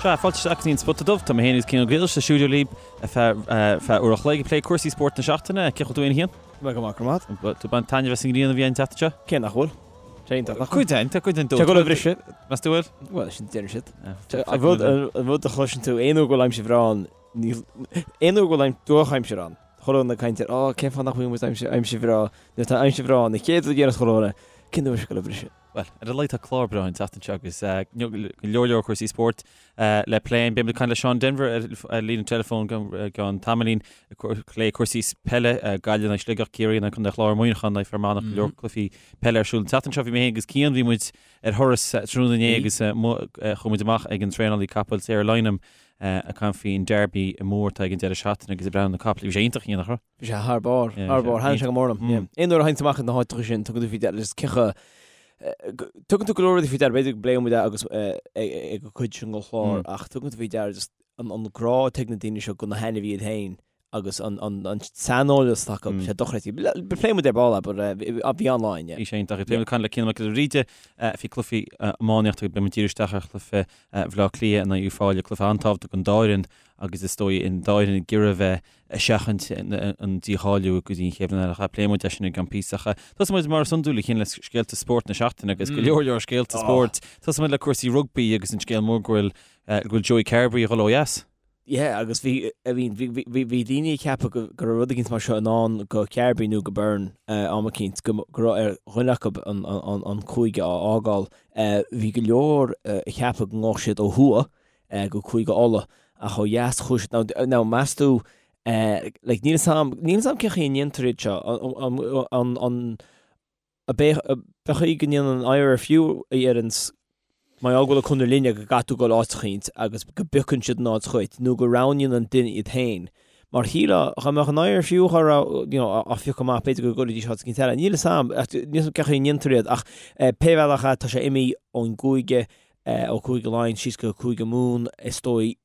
Sea, fáilte isteach go dtí an Spota Dubh. Tá mé féin agus Cian Ó Griallais sa stiúideo libh ar feadh uair a chloig ag plé cúrsaí spóirt na seachtaine. Cén chaoi a bhfuil tú féin, a Chian? Tá mé go maith, go raibh maith agat. Tú ag baint taitneamh as an ngrian a bhí an tseachtain seo? Cé nach bhfuil? Sé iontach, nach bhfuil? Cuid den, tá cuid den dóite. Tá ag dul a bhriseadh. Meas tú bhfuil? Bhuel, sin deireann siad. An rud, an rud a chloiseann tú, aon uair go bhfuil aimsir bhreá ann, níl, aon uair go bhfuil drochaimsir ann, chuile dhuine ag caint ar, oh, cén fáth nach bhfuil muid aimsir, aimsir bhreá, nuair atá aimsir bhreá ann, an chéad rud a deireann chuile dhuine, cén uair seo ag dul a bhriseadh? Bhuel, ar a laghad tá clár breá an tseachtain seo agus go leor leor cúrsaí spóirt le plé. Beidh muid ag caint le Seán Denvir ar líne teileafóin i gceann tamaillín ag plé cúrsaí peile, Gaillimh in aghaidh Sligeach, Ciarraí in aghaidh Contae an Chláir, Muineachán in aghaidh Fear Manach, go leor cluichí peile ar siúl an tseachtain seo. Bhí mé féin agus Cian, bhí muid ar thuras tráthnóna inné agus chuaigh muid amach ag an traenálaí capaill Sarah Lynam ag caint faoin Derby mór atá ag an deireadh seachtaine agus ag breathnú ar na capaill. Bhí sé iontach, Cian, nach raibh? Bhí sé thar barr, thar barr. Thaitin sé go mór liom. Aon uair a théann tú amach ag na háiteacha sin, tugann tú faoi deara, just ciocha, tugann tú go leor rudaí faoi deara, b'fhéidir go bpléifidh muid é agus ag an gcuid sin den chlár, ach tugann tú faoi deara just an grá atá ag na daoine seo do na hainmhithe iad féin agus an saineolas atá acu, sé dochreidte. Pléifidh muid ar ball é, but bhí an-lá againn, yeah. Bhí sé iontach. Beidh muid ag caint le Cian Mac Giolla Bhríde faoi cluichí iománaíochta, beidh muid ag díriú isteach ar chluiche Bhaile Átha Cliath in aghaidh Uíbh Fhailí, cluiche an-tábhachtach don dá fhoireann agus is dóigh an dá fhoireann ag iarraidh a bheith ag seachaint an dícháiliú go dtí an chéad bhliain eile. Pléifidh muid é sin i gceann píosa. Tosóidh muid mar is iondúil a Chian le scéalta spóirt na seachtaine agus go leor leor scéalta spóirt. Tosóidh muid le cúrsaí rugbaí agus an scéal mór go bhfuil go bhfuil Joey Carbery ag dul ó dheas. Yeah agus bhí I mean bhí bhí bhí daoine ag ceapadh go go raibh rud eicínt mar seo i ndán go Carbery nó go Byrne am eicínt go go raibh ar dhuine acu an an an cúige a fhágáil. Bhí go leor ag ceapadh go ngabhfadh siad ó thuaidh go Cúige Uladh ach ó dheas chuaigh siad now now meas tú like níl 'fhios a'm níl 'fhios a'm cén chaoi a ndéantar iad seo an an an an b'é an chaoi go ndéanann an IRFU a dheireanns mar gheall go bhfuil an conradh linne go gcaithfidh tú dul áit eicínt agus go bpiocann siad an áit dhuit nó go roghnaíonn an duine iad féin mar shílfeá dá mbeadh an IRFU á you know á phiocadh amach b'fhéidir go gcuirfidís áit eicínt eile níl 'fhios a'm níl 'fhios a'm cén chaoi a ndéantar iad ach pé bhealach é tá sé imithe ón gcúige ó Chúige Laighean síos go Cúige Mumhan, is dóigh,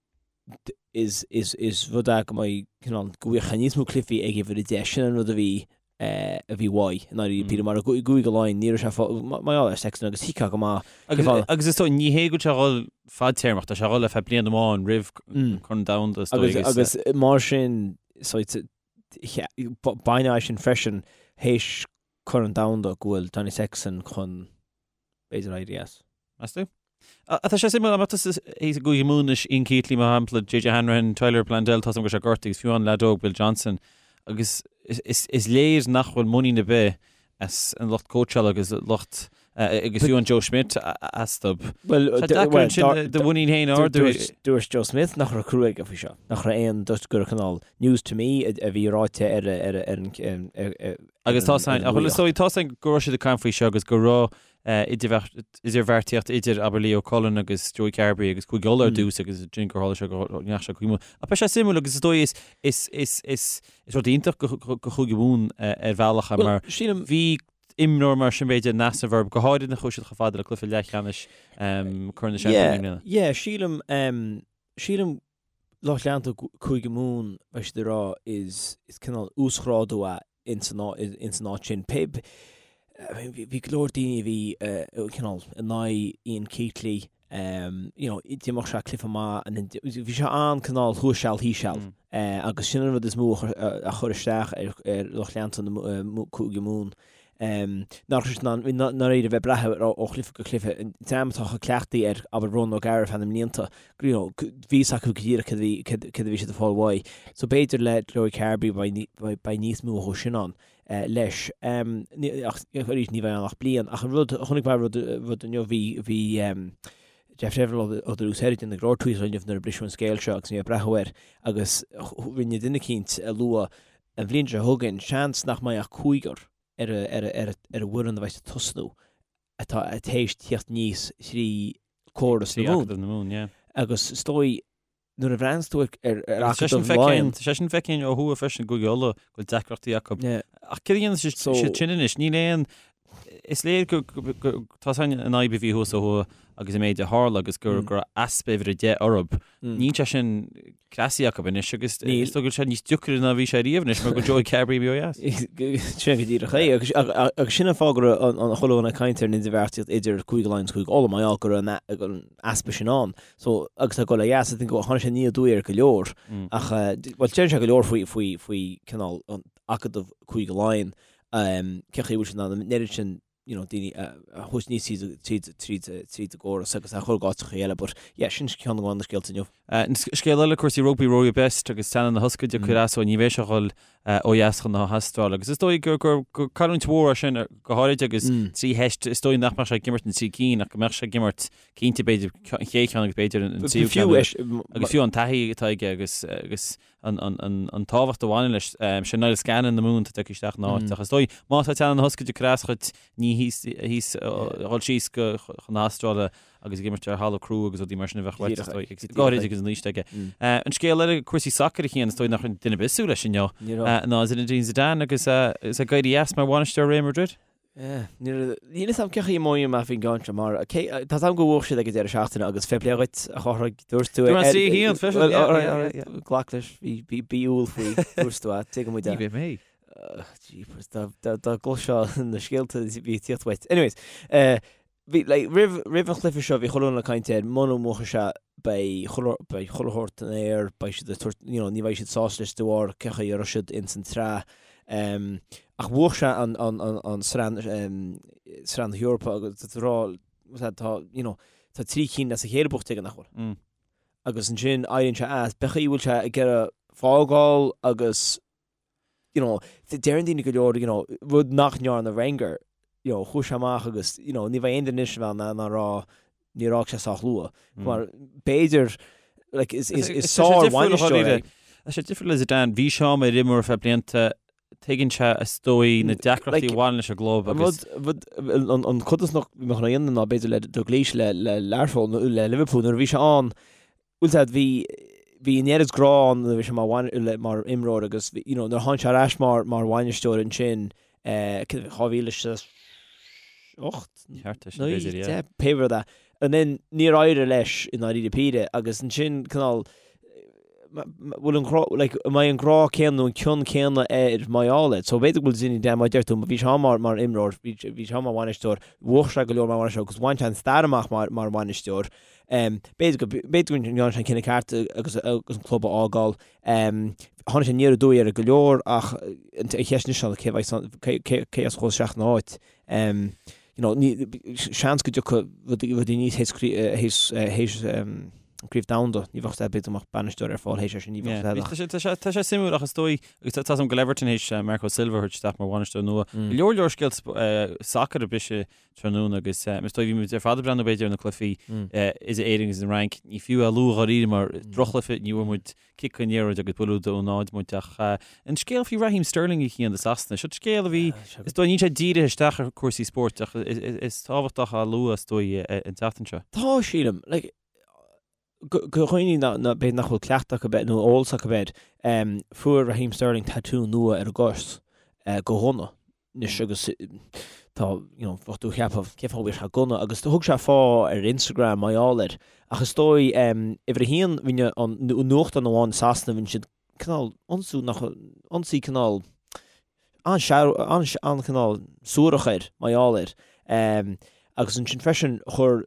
is, is, is rud é go mbeidh, cineál, go bhfaighidh níos mó cluichí ag uimhir 10, sin an rud a bhí, a bhí uaidh, i ndáiríre píre, mar i gCúige Laighean, ní raibh sé fá, mar gheall ar Sexton agus thuigfeá go maith, Agus, agus is dóigh, ní hé go bhfuil sé ag dul fadtéarmach, tá sé ag dul ar feadh bliain amháin roimh Corn Domhanda, is dóigh, agus. Agus, agus mar sin, so, baineann é sin freisin, théis Corn Domhanda, go bhfuil Johnny Sexton chun, b'fhéidir éirí as. Meas tú? Tá sé suimiúil, an mbeadh tusa i gCúige Mumhan anois, Ian Keatley, mar shampla, JJ Hanrahan, Tyler Bleyendaal, tá a fhios agam go bhfuil sé gortaithe agus fiú an leaid óg Bill Johnston, agus is léir nach bhfuil muinín ar bith as an lucht cóitseála agus lucht agus fiú an Joe Schmidt astu. Bhuel, Tá deacair ansin do mhuinín féin a ardú. Dúirt Joe Schmidt nach raibh crua aige faoi seo, nach raibh aon, dúirt gur cineál news to me a bhí ráite ar an Agus tá a fhios a'inn, tá a fhios a'inn go raibh siad ag caint faoi seo agus go raibh idirbheartaíocht idir, abair, Leo Cullen agus Joey Carbery agus Cúige Uladh ar dtús agus ansin gur tharla sé go ndeachaigh sé chuig Mumhan. Ach beidh sé suimiúil agus is dóigh is, is, is, is, is rud iontach go, go, go Chúige Mumhan ar bhealach é mar bhí imreoir mar sin b'fhéidir in easnamh orthu, go háirid nuair a chuaigh siad chomh fada le cluiche leathcheannais Corn na Seaimpíní i mbliana. Yeah, sílim, sílim lucht leanta Cúige Mumhan, beidh siad ag rá, is, is cineál uasghrádú é ins an áit sin. Pé, bhí go leor daoine a bhí cineál in aghaidh Ian Keatley, you know, d'imir sé cluiche maith and then bhí sé an-cineál thuas seal thíos seal agus sin an rud is mó a chuir isteach ar lucht leanta na Cúige Mumhan. Nach raibh siad in ann, i ndáiríre, bheith ag brath air ó chluiche go cluiche. An dream atá chomh cleachtaithe ar, abair, Ronan O'Gara ar feadh na mblianta, you know, bhí fhios acu go díreach cad a bhí, cad a bhí siad ag fáil uaidh. So b'fhéidir le Joey Carbery beidh, beidh níos mó dhó sin ann leis. Ach arís ní bheidh ann ach bliain. Ach an rud, chonaic mé rud, rud inniu, bhí, bhí Jeff Deverell ó The Loose Head ag déanamh go leor tweets inniu nuair a briseadh an scéal seo agus bhí mé ag breathnú air agus rinne duine eicínt a lua An bhliain seo chugainn, seans nach mbeidh ach cúigear ar an bhfoireann a bheidh ag tosnú atá théis tíocht aníos thrí córas na Mumhan. Agus is dóigh, nuair a bhreathnaíonns tú ar Acadamh Laighean... Tá sé sin feicthe ó thuaidh freisin, i gCúige Uladh, go bhfuil deacrachtaí acu. Ach céard a dhéanfaidh siad sin anois? Níl aon... Is léir go, tá a fhios a'inn an fhadhb a bhí thuas ó thuaidh. agus an méid a tharla agus go raibh easpa uimhir a 10 orthu. Níl sé sin cleasaithe acu anois agus is dóigh go bhfuil sé níos deacra ná bhí sé riamh anois mar go bhfuil Joey Carbery imithe ó dheas. Sin go díreach é agus agus sin an fáth go raibh an chuile dhuine ag caint ar an idirbheartaíocht idir Cúige Laighean agus Cúige Uladh mar gheall go raibh an easpa sin ann. So agus tá ag dul ó dheas I think tháinig sé aniar aduaidh ar go leor ach bhuel deireann sé go leor faoi faoi faoi cineál an acadamh Cúige Laighean cén chaoi a bhfuil siad in ann an oiread sin you know, daoine a thabhairt aníos tríd, tríd, tríd, tríd an gcóras agus a chur go áiteacha eile, but yeah, sin ceann de na scéalta inniu. Scéal eile, cúrsaí rugbaí, Rory Best agus teannán na hioscaide ag cur as dó, ní bheidh sé ag dul ó dheas chun na hAstráile agus is dóigh gur, gur, gur cailliúint mhór é sin go háirid agus 3 theist, is dóigh nach mbeadh sé ag imirt na trí cinn ach go mbeadh sé ag imirt cinnte b'fhéidir an chéad cheann agus b'fhéidir an tríú ceann agus fiú an taithí atá aige agus, agus an tábhacht a bhaineann leis. Sé Niall Scanlon na Mumhan atá tagtha isteach ina áit. Ach is dóigh, má tá teannán na hioscaide ag cur as dhuit, ní thíos, thíos, dhul síos go, chun na hAstráile agus ag imirt ar thalamh crua agus rudaí mar sin a bheadh uait, is dóigh, agus go háirid agus an aois aige. An scéal eile, cúrsaí sacair a Chian, is dóigh nach raibh duine ar bith ag súil leis inniu, ná Zinedine Zidane agus é ag éirí as mar bhainisteoir Real Madrid. Níl a fhios agam cén chaoi a mothaím faoin gceann seo mar tá a fhios agam gur bhuaigh siad ag an deireadh seachtaine agus fair play dhuit a Chárthaigh dúirt tú é. Dúirt mé 3-1 freisin. Yeah, Glac leis bhí bí umhal faoi dúirt tú é tuigeann muid é. Ní bheidh mé. Jeepers dá gcloisfeá na scéalta bhí ag tíocht uait. Anyways, Bhí, like, roimh, roimh an chluiche seo bhí chuile dhuine ag caint air, muna mbuafaidh sé beidh chuile, beidh chuile shórt in aer, beidh siad ag tabhairt, you know, ní bheidh siad sásta leis de bharr cé chaoi a raibh siad ins an tsraith. Um, ach bhuaigh sé an, an, an, an sraith, um, sraith na hEorpa agus tá rá, tá, tá, you know, tá 3 cinn as a chéile buaite aige nach bhfuil. Mm. Agus ansin éiríonn sé as, pé chaoi a bhfuil sé ag iarraidh fágáil agus you know, deireann daoine go leor, you know, rud nach ndearna Wenger, you know, chuaigh sé amach agus, you know, ní bheidh aon duine anois a bheith in ann a rá níor fhág sé sách luath. Mar b'fhéidir, like, is, is, is sár-bhainisteoir é. Tá sé difriúil le Zidane, bhí sé mar imreoir ar feadh blianta, tuigeann sé is dóigh na deacrachtaí a bhaineann leis an gclub agus. Rud, rud, an, an codarsnacht a bheadh ann ná b'fhéidir le Dalglish le, le Learpholl, le Liverpool nuair a bhí sé ann, Bhfuil a fhios agat, bhí, bhí an oiread grá ann nuair a bhí sé mar bhain, le, mar imreoir agus bhí, you know, nuair a tháinig sé ar ais mar, mar bhainisteoir ansin, eh, 2008? Thart air sin, b'fhéidir, yeah. 9, 10, pé rud é. And then níor éirigh leis i ndáiríre píre agus ansin cineál, bhfuil an grá, like, an mbeidh an grá céanna nó an cion céanna air mar gheall air. So b'fhéidir go bhfuil Zinedine, mar a deir tú, bhí sé ann mar, mar imreoir, bhí, bhí sé ann mar bhainisteoir, bhuaigh sé go leor mar bhainisteoir agus bhain sé an stair amach mar, mar bhainisteoir. B'fhéidir go b'fhéidir go ndearna sé an cinneadh ceart agus an club a fhágáil. Tháinig sé aniar aduaidh ar go leor ach an cheist anois ná cé bheidh cé cé as a chuaigh isteach ina áit. You know, ní seans go dtiocfaidh rudaí rudaí aníos théis théis théis Craobh Domhanda. Ní bheadh b'fhéidir go mbeadh bainisteoir ar fáil théis é sin, ní bheadh ach. Tá sé tá sé suimiúil ach is dóigh agus tá a fhios agam go bhfuil Everton théis Marco Silva a thabhairt isteach mar bhainisteoir nua. Go leor leor scéalta sacair ag briseadh tráthnóna agus is dóigh bhí muid ar fad ag breathnú b'fhéidir ar na cluichí idir Éirinn agus an Fhrainc. Ní fiú é a lua dháiríre mar drochchluiche, ní bhfuair muid cic an liathróid agus buille dó náid muid ach an scéal faoi Raheem Sterling a Chian do Sasana, seo scéal a bhí, is dóigh, níl sé dírithe isteach ar chúrsaí spóirt ach is tábhachtach á lua is dóigh an tseachtain seo. Tá, sílim. Like, do dhaoine b'fhéidir nach bhfuil cleachtadh acu air nó eolas acu air, fuair Raheem Sterling tatú nua ar a gcos de ghunna. anois agus tá, you know, bheadh tú ag ceapadh cén fáth a bhfuil sé gunna agus thug sé fáth ar Instagram mar gheall air ach is dóigh uimhir a haon rinne an nuachtán amháin i Sasana rinne siad cineál ionsú nach ionsaí cineál an-chineál suarach air mar gheall air agus ansin freisin chuir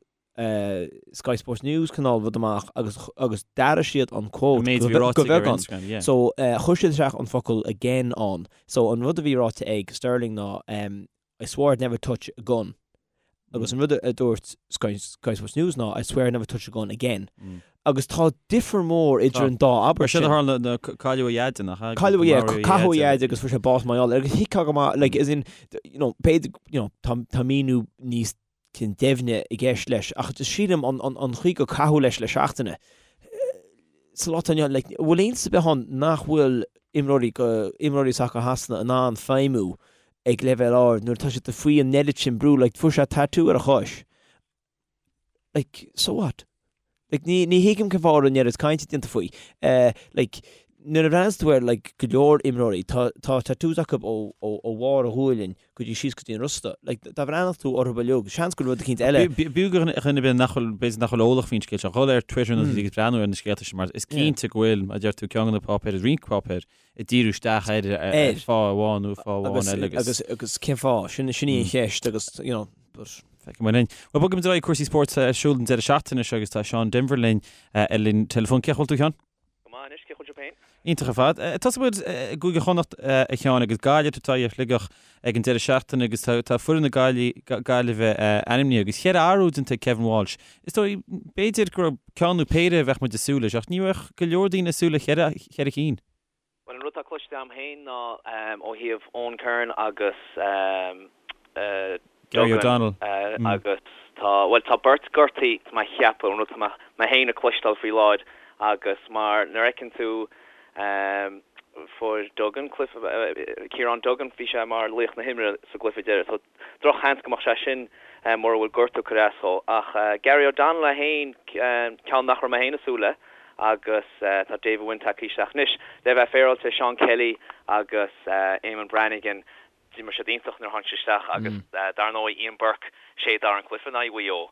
Sky Sports News cineál rud amach agus agus d'athraigh siad an quote An méid a bhí ráite aige ar Instagram, yeah. So chuir siad isteach an focal again ann. So an rud a bhí ráite ag Sterling ná I swore I'd never touch a gun. Agus an rud a dúirt Sky, Sky Sports News ná I swear I'd never touch a gun again. Agus tá difear mór idir an dá abairt sin. Sin a tharla nuair a cailleadh a dhaid, nach ea? Cailleadh, yeah, caitheadh a dhaid agus fuair sé bás mar gheall air. Agus thuigfeá go maith, like, as in, you know, b'fhéidir, you know, tá, tá míniú níos cineál doimhne i gceist leis ach just sílim an chaoi gur caitheadh leis le seachtaine sa lá atá inniu ann, like, bhfuil iontas ar bith ann nach bhfuil imreoirí go, imreoirí sacair Shasana in ann feidhmiú ag leibhéal ard nuair atá siad faoi an oiread sin brú, like, fuair sé tatú ar a chois, like, so what? Like, ní, ní thuigim cén fáth a raibh an oiread cainte déanta faoi. Eh, like, Nuair a bhreathnaíonns tú ar like go leor imreoirí, tá tá tattoos acu ó ó ó bharr a ghualainn go dtí síos go dtí an rosta. Like dá bhreathnódh tú orthu uilig, seans go rud eicínt eile. B'fhiú do dhuine ar bith nach bhfuil, b'fhéidir nach bhfuil eolach faoin scéal seo, dhul ar Twitter nó agus breathnú ar na scéalta sin mar is cinnte go bhfuil, mar a deir tú, ceann de na páipéir, roinnt páipéir ag díriú isteach air ar fáth amháin nó fáth amháin eile agus. Agus agus cén fáth? Sin sin í an cheist agus you know but. Feicfidh muid linn. Bhuel, bogfaimid ar aghaidh cúrsaí spóirt ar siúl an deireadh seachtaine seo agus tá Seán Denvir linn ar an teileafón. Cén chaoi a bhfuil tú, a Sheáin? Go maith anois, cén chaoi a bhfuil sibh féin? Iontach ar fad. Tosóidh muid i gCúige Chonnacht, a Sheáin, agus Gaillimh ag tabhairt aghaidh ar Shligeach ag an deireadh seachtaine agus tá foireann na Gaillimhe ainmnithe agus cheithre athrú déanta ag Kevin Walsh. Is dóigh, b'fhéidir go raibh ceann nó péire a bheadh muid ag súil leis ach ní bheadh go leor daoine ag súil le cheithre cinn. Bhuel, an rud atá cloiste agam féin ná ó thaobh Eoghan Kerin agus Gary O'Donnell agus tá, bhuel, tá beirt gortaithe, tá mé a cheapadh, an rud atá mé féin ag cloisteáil faoi láthair agus mar nuair a fheiceann tú fuair Duggan cluiche, Ciarán Duggan, bhí sé mar laoch na himeartha sa gcluiche deiridh so drochsheans go mbeadh sé sin mura bhfuil gortú ag cur as dhó. Ach Gary O'Donnell é féin, ceann nach raibh mé féin ag súil le agus tá David Wynne tagtha isteach anois. Le bheith féaráilte, Seán Kelly agus Eamonn Brannigan, D'imir siad iontach nuair a tháinig siad isteach agus dar ndóigh Ian Burke, sé a d'athraigh an cluiche in aghaidh Mhaigh Eo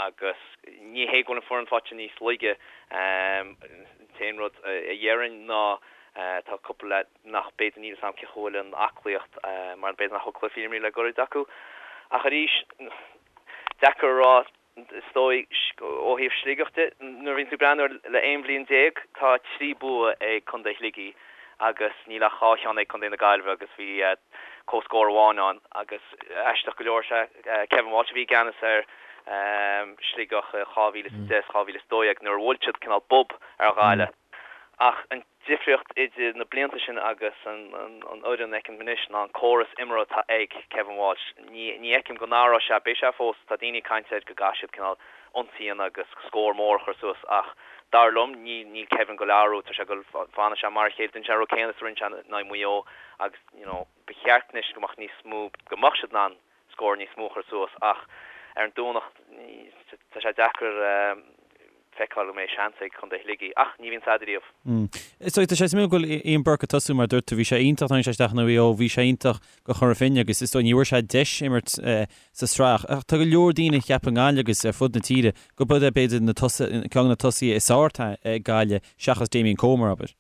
agus ní hé go bhfuil an foireann faighte níos laige. An t-aon rud a dhéarfainn ná tá cúpla leaid nach b'fhéidir níl 'fhios a'm cén chaoi a bhfuil an aclaíocht mar b'fhéidir nach bhfuil cluichí imrithe le goirid acu. Ach arís, deacair a rá. Is dóigh, ó thaobh Sligeach de, nuair a bhíonn tú ag breathnú air le 11 bhliain, tá 3 bua ag Contae Shligigh agus níl ach 2 cheann ag Contae na Gaillimhe agus bhí comhscór amháin ann agus aisteach go leor, sé Kevin Walsh a bhí i gceannas ar Sligeach i 2010 is 2012 nuair a bhuail siad cineál bob ar Ghaillimh. Ach an difríocht idir na blianta sin agus an fhoireann a fheicim anois ná an córas imeartha atá ag Kevin Walsh. Ní fheicim go n-athróidh sé, beidh sé fós, tá daoine ag caint air go gcaithfidh siad cineál ionsaí a dhéanamh agus scór mór a chur suas ach dar liom níl Kevin ag goil a athrú, tá sé ag goil, fanfaidh sé mar a chéile, déanfaidh sé an rud céanna is a rinne sé in aghaidh Mhaigh Eo agus you know ba cheart anois go mbeadh níos mó, go mbeadh siad in ann scór níos mó a chur suas ach ar an Domhnach tá sé deacair feiceáil go mbeidh seans ag Contae Shligigh ach ní bhíonn a'd ariamh. Is dóigh, tá sé suimiúil go bhfuil Ian Burke ag tosú mar dúirt tú, bhí sé iontach, tháinig sé isteach in aghaidh Mhaigh Eo, bhí sé iontach do Chora Finne agus is dóigh ní bhfuair sé deis imirt sa tsraith ach tá go leor daoine ag ceapadh i nGaillimh agus ar fud na tíre go b'é b'fhéidir na tosaithe, ceann de na tosaithe is fearr atá ag Gaillimh seachas Damien Comer, abair.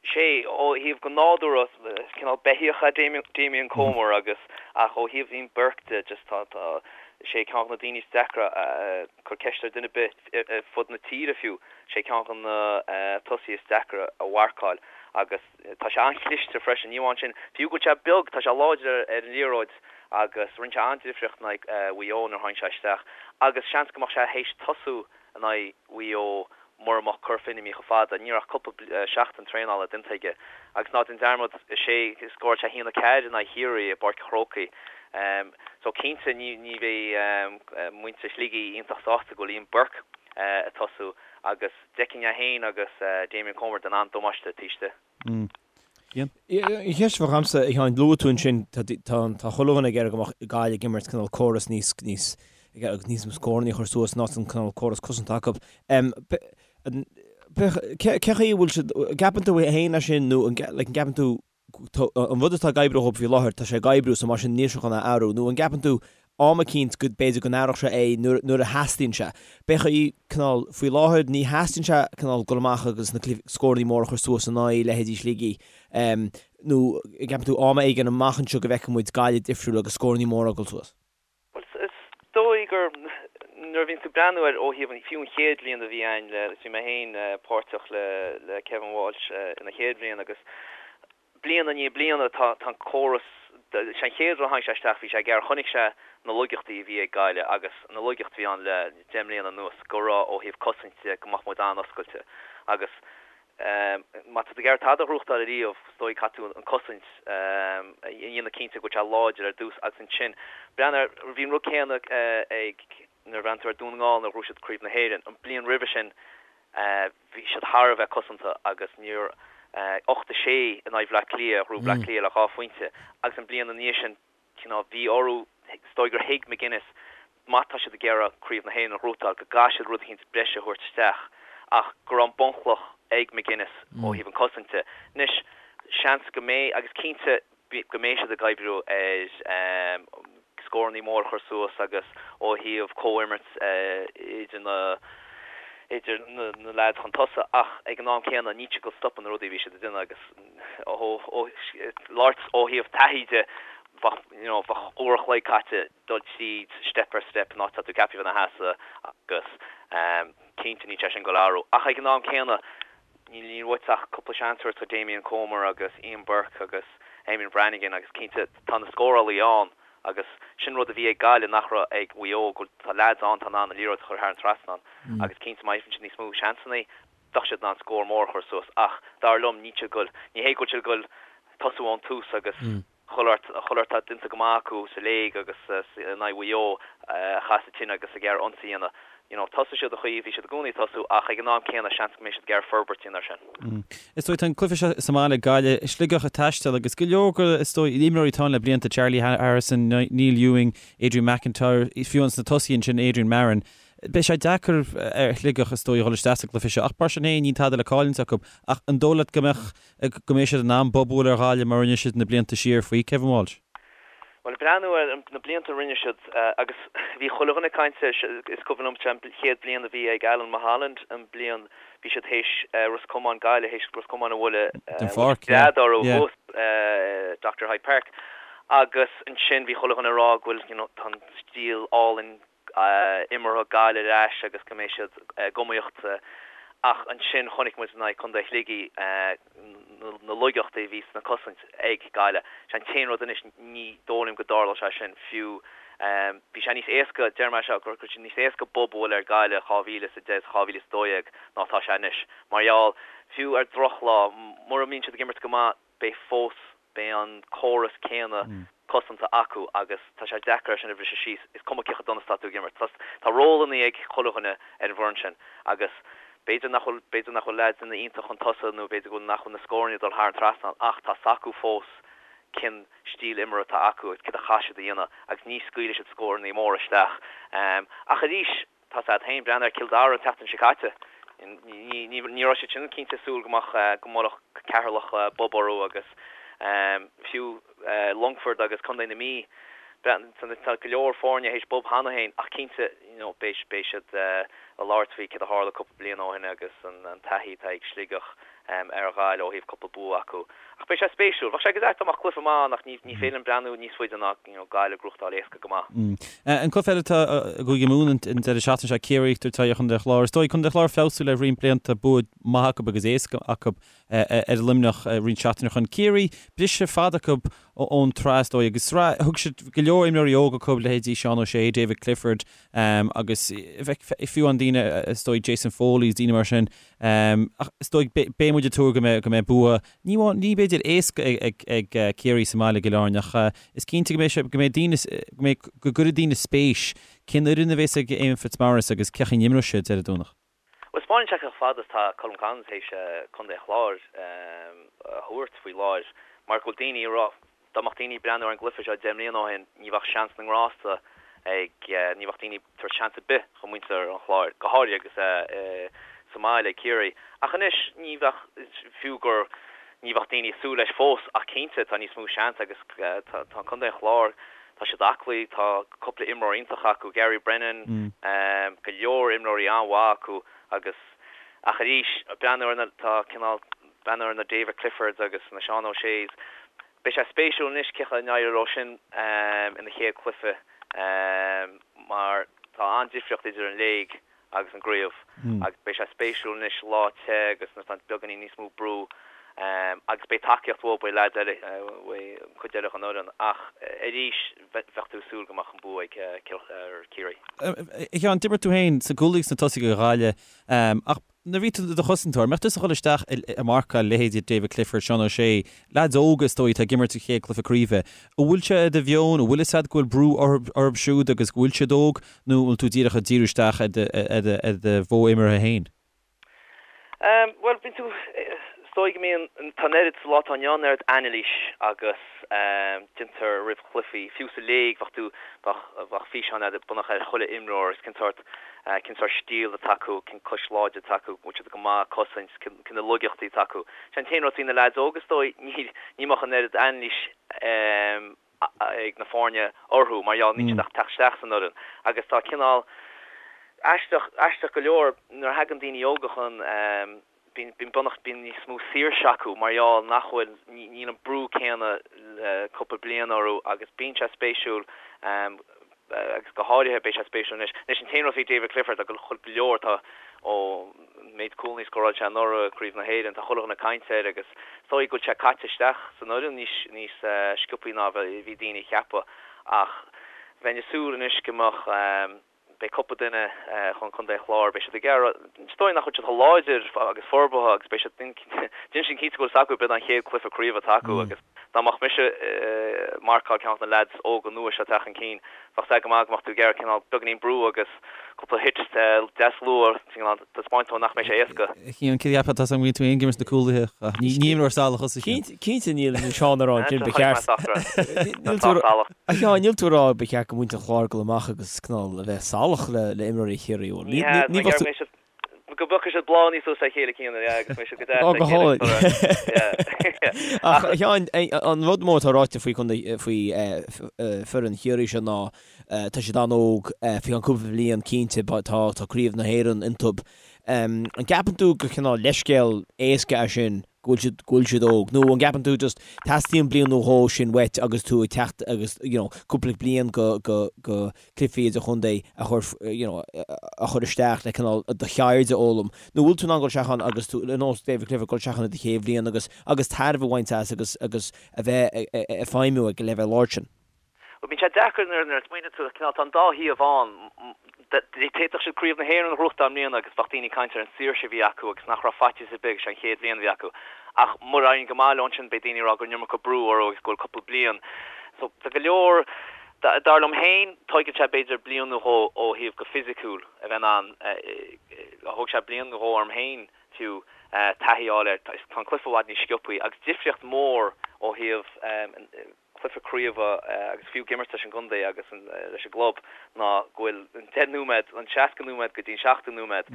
Sé, ó thaobh go nádúrtha, is cineál beithíoch é Damien Comer agus, ach ó thaobh Ian Burke de, just tá, tá, sé ceann de na daoine is deacra a, cuir ceist ar duine ar bith ar fud na tíre fiú, sé ceann de na tosaithe is deacra a mharcáil agus tá sé an-chliste freisin, ní amháin sin, fiú go bhfuil sé beag, tá sé láidir ar an liathróid agus rinne sé an-difríocht in aghaidh Mhaigh Eo nuair a tháinig sé isteach agus seans go mbeadh sé théis tosú in aghaidh Mhaigh Eo mura mbeadh Cora Finne imithe chomh fada. Ní raibh ach cúpla seachtain traenála déanta aige. Agus ná déan dearmad, is é, scóráil sé 1-4 in aghaidh Chiarraí i bPáirc an Chrócaigh. So cinnte ní ní bheidh muintir Shligigh iontach sásta go bhfuil Ian Burke ag tosú agus d'fheicfinn é féin agus Damien Comer ag déanamh an-damáiste taobh istigh. An cheist a bheadh agamsa, a Sheáin, luaigh tú ansin, tá tá chuile dhuine ag iarraidh go mbeadh Gaillimh ag imirt cineál córas níos níos agus níos mó scóranna a chur suas ná an cineál córas cosanta acu. Cé chaoi a bhfuil siad, an gceapann tú féin é sin nó an like an gceapann tú an rud atá ag oibriú dhóibh faoi láthair, tá sé ag oibriú so mar sin níl sé chun a athrú nó an gceapann tú am eicínt go b'fhéidir go n-athródh sé é nuair nuair a theastaíonn sé. B'é chaoi cineál faoi láthair ní theastaíonn sé cineál dul amach agus na scóranna móra a chur suas in aghaidh leithéidí Shligigh nó an gceapann tú am éigin amach anseo go bhfeicfidh muid Gaillimh difriúil agus scóranna móra ag dul suas? Bhuel is dóigh gur nuair a bhíonn tú ag breathnú air ó thaobh an fiú an chéad bhliain a bhí a'inn le bhí mé féin páirteach le le Kevin Walsh ina chéad bhliain agus Bliain i ndiaidh bliana tá an córas, sé an chéad rud a tháinig sé isteach bhí sé ag iarraidh, chonaic sé na laigeachtaí a bhí ag Gaillimh agus na laigeachtaí a bhí ann le 10 mbliana anuas go raibh ó thaobh cosaint de go mbeadh muid an-oscailte agus má tá tú ag iarraidh tada a ghnóthachtáil ariamh is dóigh caithfidh tú an cosaint a dhéanamh cinnte go bhfuil sé láidir ar dtús agus ansin breathnaigh ar, bhí an rud céanna ag nuair a bhreathnaigh tú ar Dún na nGall nuair a ghnóthaigh siad Craobh na hÉireann an bliain roimhe sin Bhí siad thar a bheith cosanta agus níor 8 6 in aghaidh Bhleá Cliath, ghnóthaigh Bleá Cliath le 2 phointe agus an bliain ina dhiaidh sin, cineál, bhí orthu, is dóigh gur thuig McGuinness má tá siad ag iarraidh Craobh na hÉireann a ghnóthachtáil go gcaithfidh siad rud eicínt breise a thabhairt isteach ach go raibh an bunchloch. ag McGuinness ó thaobh an cosaint de. Anois, seans go mbeidh, agus cinnte go mbeidh siad ag oibriú ar scórannaí mór a chur suas agus ó thaobh comhimirt idir na idir na leaids chun tosaigh ach ag an am céanna níl siad ag dul stopadh na rudaí a bhí siad ag déanamh agus ó labhairt ó thaobh taithí de bheadh you know bheadh uair a chloig caite dul tríd step ar step an áit atá tú ceaptha a bheith ina sheasamh agus cinnte níl sé sin ag dul a athrú ach ag an am céanna níl uait ach cúpla seans a thabhairt do Damien Comer agus Ian Burke agus Eamonn Brannigan agus cinnte tá na scórálaí ann agus sin rud a bhí ag Gaillimh nach raibh ag Mhaigh Eo go bhfuil tá leaids ann atá in ann an liathróid a chur thar an trasnán agus cinnte má fhaigheann siad níos mó seansanna bheadh siad in ann scór mór a chur suas ach dar liom níl siad ag dul ní hé go bhfuil siad ag dul tosú ón tús agus chuile shórt atá déanta go maith acu sa léig agus in aghaidh Mhaigh Eo a chaith sa tine agus ag iarraidh ionsaí a dhéanamh. You know, tosóidh siad an chaoi a bhí siad i gcónaí ag tosú ach ag an am céanna seans go mbeidh siad ag iarraidh forbairt a dhéanamh air sin. Is dóigh, tá an cluiche seo sa mbaile ag Gaillimh, Sligeach ag taisteal agus go leor go, is dóigh, imreoirí atá ann le blianta, Charlie Harrison, Neil Ewing, Adrian McIntyre, fiú ins na tosaithe ansin Adrian Marron. Beidh sé deacair ar Shligeach, is dóigh, a dhul isteach sa gcluiche seo ach mar sin féin níl tada le cailliúint acu. Ach an dóigh leat go mbeadh go mbeidh siad in ann bob a bhualadh ar Ghaillimh mar a rinne siad na blianta siar faoi Kevin Walsh. Bhuel, ag breathnú ar na blianta a rinne siad, agus bhí chuile dhuine ag caint air, is cuimhin liom an chéad bhliain a bhí ag Alan Mulholland, an bliain bhí siad théis Ros Comáin, Gaillimh théis Ros Comáin a bhualadh, Den pháirc, yeah. gread orthu thuas Dr Hyde Park. Agus ansin bhí chuile dhuine ag rá go bhfuil, you know, tá an stíl álainn imeartha Gaillimh ar ais agus go mbeidh siad ag iomaíocht ach ansin chonaic muid in aghaidh Contae Shligigh na laigeachtaí a bhí sna cosaint ag Gaillimh. Sé an t-aon rud anois ní dóigh liom go dtarlódh sé sin fiú bhí sé níos éasca, deir mé seo, go raibh sé níos éasca bob a bhualadh ar Gaillimh 2010 is 2012 ná atá sé anois mar gheall fiú ar drochlá mura mbíonn siad ag imirt go maith beidh fós beidh an córas céanna cosanta acu agus tá sé deacair é sin a bhriseadh síos, is cuma cé chomh dona is atá tú ag imirt. Tá tá rólannaí ag chuile dhuine ar an bhfoireann sin agus b'fhéidir nach bhfuil b'fhéidir nach bhfuil leaids ina iontach chun tosaigh nó b'fhéidir go bhfuil nach bhfuil na scóranna ag dul thar an trasnán ach tá s'acu fós cén stíl imeartha atá acu agus céard a chaithfidh siad a dhéanamh agus ní scaoilfidh siad scórannaí móra isteach. Ach arís Tá 's agat féin, breathnaigh ar Cill Dara an tseachtain seo caite. Ní raibh siad sin cinnte ag súil go mbeadh, go mbuailfeadh Ceatharlach bob orthu agus fiú Longfort agus Contae na Mí, tá go leor foirne théis bob cheana féin ach cinnte you know beidh siad ag labhairt faoi céard a tharla cúpla bliain ó shin agus an taithí atá ag Sligeach ar Ghaillimh ó thaobh cúpla bua acu. Ach beidh sé spéisiúil. Bheadh sé go deas dá mbeadh cluiche maith ann ach ní féidir liom breathnú níos faide ná you know Gaillimh ag gnóthachtáil éasca go maith. An cluiche eile atá i gCúige Mumhan an deireadh seachtaine seo, Ciarraí ag tabhairt aghaidh ar Chontae an Chláir. Is dóigh Contae an Chláir feabhsú le roinnt blianta, bua maith acu agus éasca acu ar Luimneach roinnt seachtainí ó shin. Ciarraí, briseadh fada acu ón tsraith is dóigh agus sraith, thug siad go leor imreoirí óga acu, leithéidí Seán O'Shea, David Clifford agus fiú an daoine is dóigh Jason Foley is daoine mar sin. Ach is dóigh, beidh muid ag tuar go mbeidh, go mbeidh bua, ní amháin, ní b'fhéidir éasca ag, ag Ciarraí sa mbaile i gCill Airne ach is cinnte go mbeidh sé, go mbeidh daoine, go mbeidh, go gcuirfidh daoine spéis cén fhoireann a bheas ag Éamonn Fitzmaurice agus cén chaoi a n-imreoidh siad ar an Domhnach. Bhuel, 'spáineann sé chomh fada is tá Colm Collins théis Contae an Chláir a thabhairt faoi láthair mar go bhfuil daoine ag rá, dá mbeadh daoine ag breathnú ar an gcluiche seo 10 mbliana ó shin, ní bheadh seans na ngrásta ag, ní bheadh daoine ag tabhairt seans ar bith do mhuintir an Chláir, go háirithe agus é sa mbaile ag Ciarraí. Ach anois, ní bheadh, fiú gur, ní bheadh daoine ag súil leis fós ach cinnte tá níos mó seans agus tá Contae an Chláir, Tá siad aclaí, tá cúpla imreoir iontach acu, Gary Brennan, go leor imreoirí an-mhaith acu agus, ach arís, breathnú ar na, tá cineál, breathnú ar na David Cliffords agus na Seán O'Sheas, beidh sé spéisiúil anois cén chaoi a n-éireoidh leo sin ina chéad chluiche mar tá an-difríocht idir an léig agus an gcraobh agus beidh sé spéisiúil anois lá te agus nuair atá beagáinín níos mó brú agus beidh tacaíocht uathu, beidh leaids eile, beidh an cuid eile den fhoireann ach arís bheadh tú ag súil go mbeadh an bua ag Ciarraí. A Sheáin, d'imir tú féin sa gcúlaí agus sna tosaithe do Ghaillimh ach Nuair a bhí tú i do chosantóir, an mbeadh tusa ag dul isteach ag marcáil leithéidí David Clifford, Seán O'Shea, leaids óga is dóigh atá ag imirt a chéad cluiche craoibhe. An bhfuil sé i do mheon, an bhfuil fhios agat go bhfuil brú orthu siúd agus go bhfuil siad óg nó an bhfuil tú díreach ag díriú isteach ar do mhodh imeartha féin? Bhuel, bíonn tú, is dóigh go mbíonn, tá an oiread, sa lá atá inniu ann, an oiread anailís agus déantar roimh chluichí, fiú sa léig bheadh tú, bheadh físeán agat bunaithe ar chuile imreoir agus cén sórt. Cén sórt stíl atá acu, cén cois láidir atá acu, bhfuil siad go maith ag cosaint, cé na laigeachtaí atá acu. Sé an t-aon rud faoi na leaids óga is dóigh, ní mbeadh an oiread anailís ag na foirne orthu mar gheall níl siad ach ag teacht isteach san fhoireann agus tá cineál aisteach, aisteach go leor nuair a thagann daoine óga chun bíonn, bíonn beagnach, bíonn níos mó saoirse acu mar gheall nach bhfuil, níl an brú céanna le cúpla bliain orthu agus bíonn sé spéisiúil agus go háirithe beidh sé spéisiúil anois. Anois an t-aon rud faoi David Clifford, tá go leor, tá ón méid cúlanna a scóráil sé anuraidh i gCraobh na hÉireann, tá chuile dhuine ag caint air agus is dóigh go bhfuil sé caite isteach san fhoireann níos níos sciobthaí ná a bhí daoine a cheapadh ach bheinn ag súil anois go mbeadh beidh cúpla duine chun Contae an Chláir, beidh siad ag iarraidh, is dóigh nach bhfuil siad chomh láidir agus forbartha agus beidh siad, déanfaidh siad cinnte go bhfuil a fhios acu, b'in an chéad cluiche craoibhe atá acu agus dá mbeadh mise ag marcáil ceann de na leaids óga nua seo ag teacht chun cinn, bheadh sé go maith go mbeadh tú ag iarraidh cineál beagáinín brú agus cúpla hit deas luath, cineál taispeáint dó nach mbeidh sé éasca. Cian, cé a cheapfá tá san bhfuil tú ag imirt na cúlaithe ach ní imreoir salach thusa Cian. Cinnte níl Seán ag rá ansin ba cheart. A Sheáin, níl tú ag rá ba cheart go muintir an Chláir dul amach agus cineál a bheith salach le imreoirí Chiarraí, bhfuil? Ní hea, ní bheadh tú. Go bpiocfaidh siad bláthanna suas le chéile Cian, yeah, agus mbeidh siad go deas le chéile. Ach a Sheáin, an rud mór atá ráite faoi faoi foireann Chiarraí seo ná tá siad an-óg, faoi cheann cúpla bliain cinnte tá tá craobh na hÉireann iontu. An gceapann tú gur cineál leithscéal éasca é sin go bhfuil siad go bhfuil siad óg nó an gceapann tú just teastaíonn bliain nó dhó sin uait agus tú ag teacht agus you know cúpla bliain go go go cluichí idirchontae a chur you know a chur isteach le cineál do cheird a fhoghlaim nó bhfuil tú in ann dul isteach ann agus tú ar nós David Clifford dul isteach ann i do chéad bhliain agus agus tairbhe a bhaint as agus agus a bheith ag feidhmiú ag an leibhéal ard sin. Bhuel, bíonn sé deacair nuair a smaoiníonn tú, cineál, tá an dá thaobh ann. D'fhéadfadh siad Craobh na hÉireann a ghnóthachtáil i mbliana agus bheadh daoine ag caint ar an saoirse a bhí acu agus nach raibh faitíos ar bith agus sé an chéad bhliain a bhí acu. Ach mura éiríonn go maith leo ansin beidh daoine ag rá go raibh an iomarca brú orthu agus go bhfuil cúpla bliain. So, tá go leor, dar liom féin, tóigeann sé b'fhéidir bliain nó dhó ó thaobh go fisiciúil a bheith in ann, thóg sé bliain nó dhó orm féin fiú, taithí a fháil air. Tá an cluiche i bhfad níos sciobthaí agus difríocht mhór ó thaobh, cluiche craoibhe agus fiú ag imirt leis an gcontae agus leis an gclub ná go bhfuil an 10 nóiméad, an 60 nóiméad go dtí an 70 nóiméad,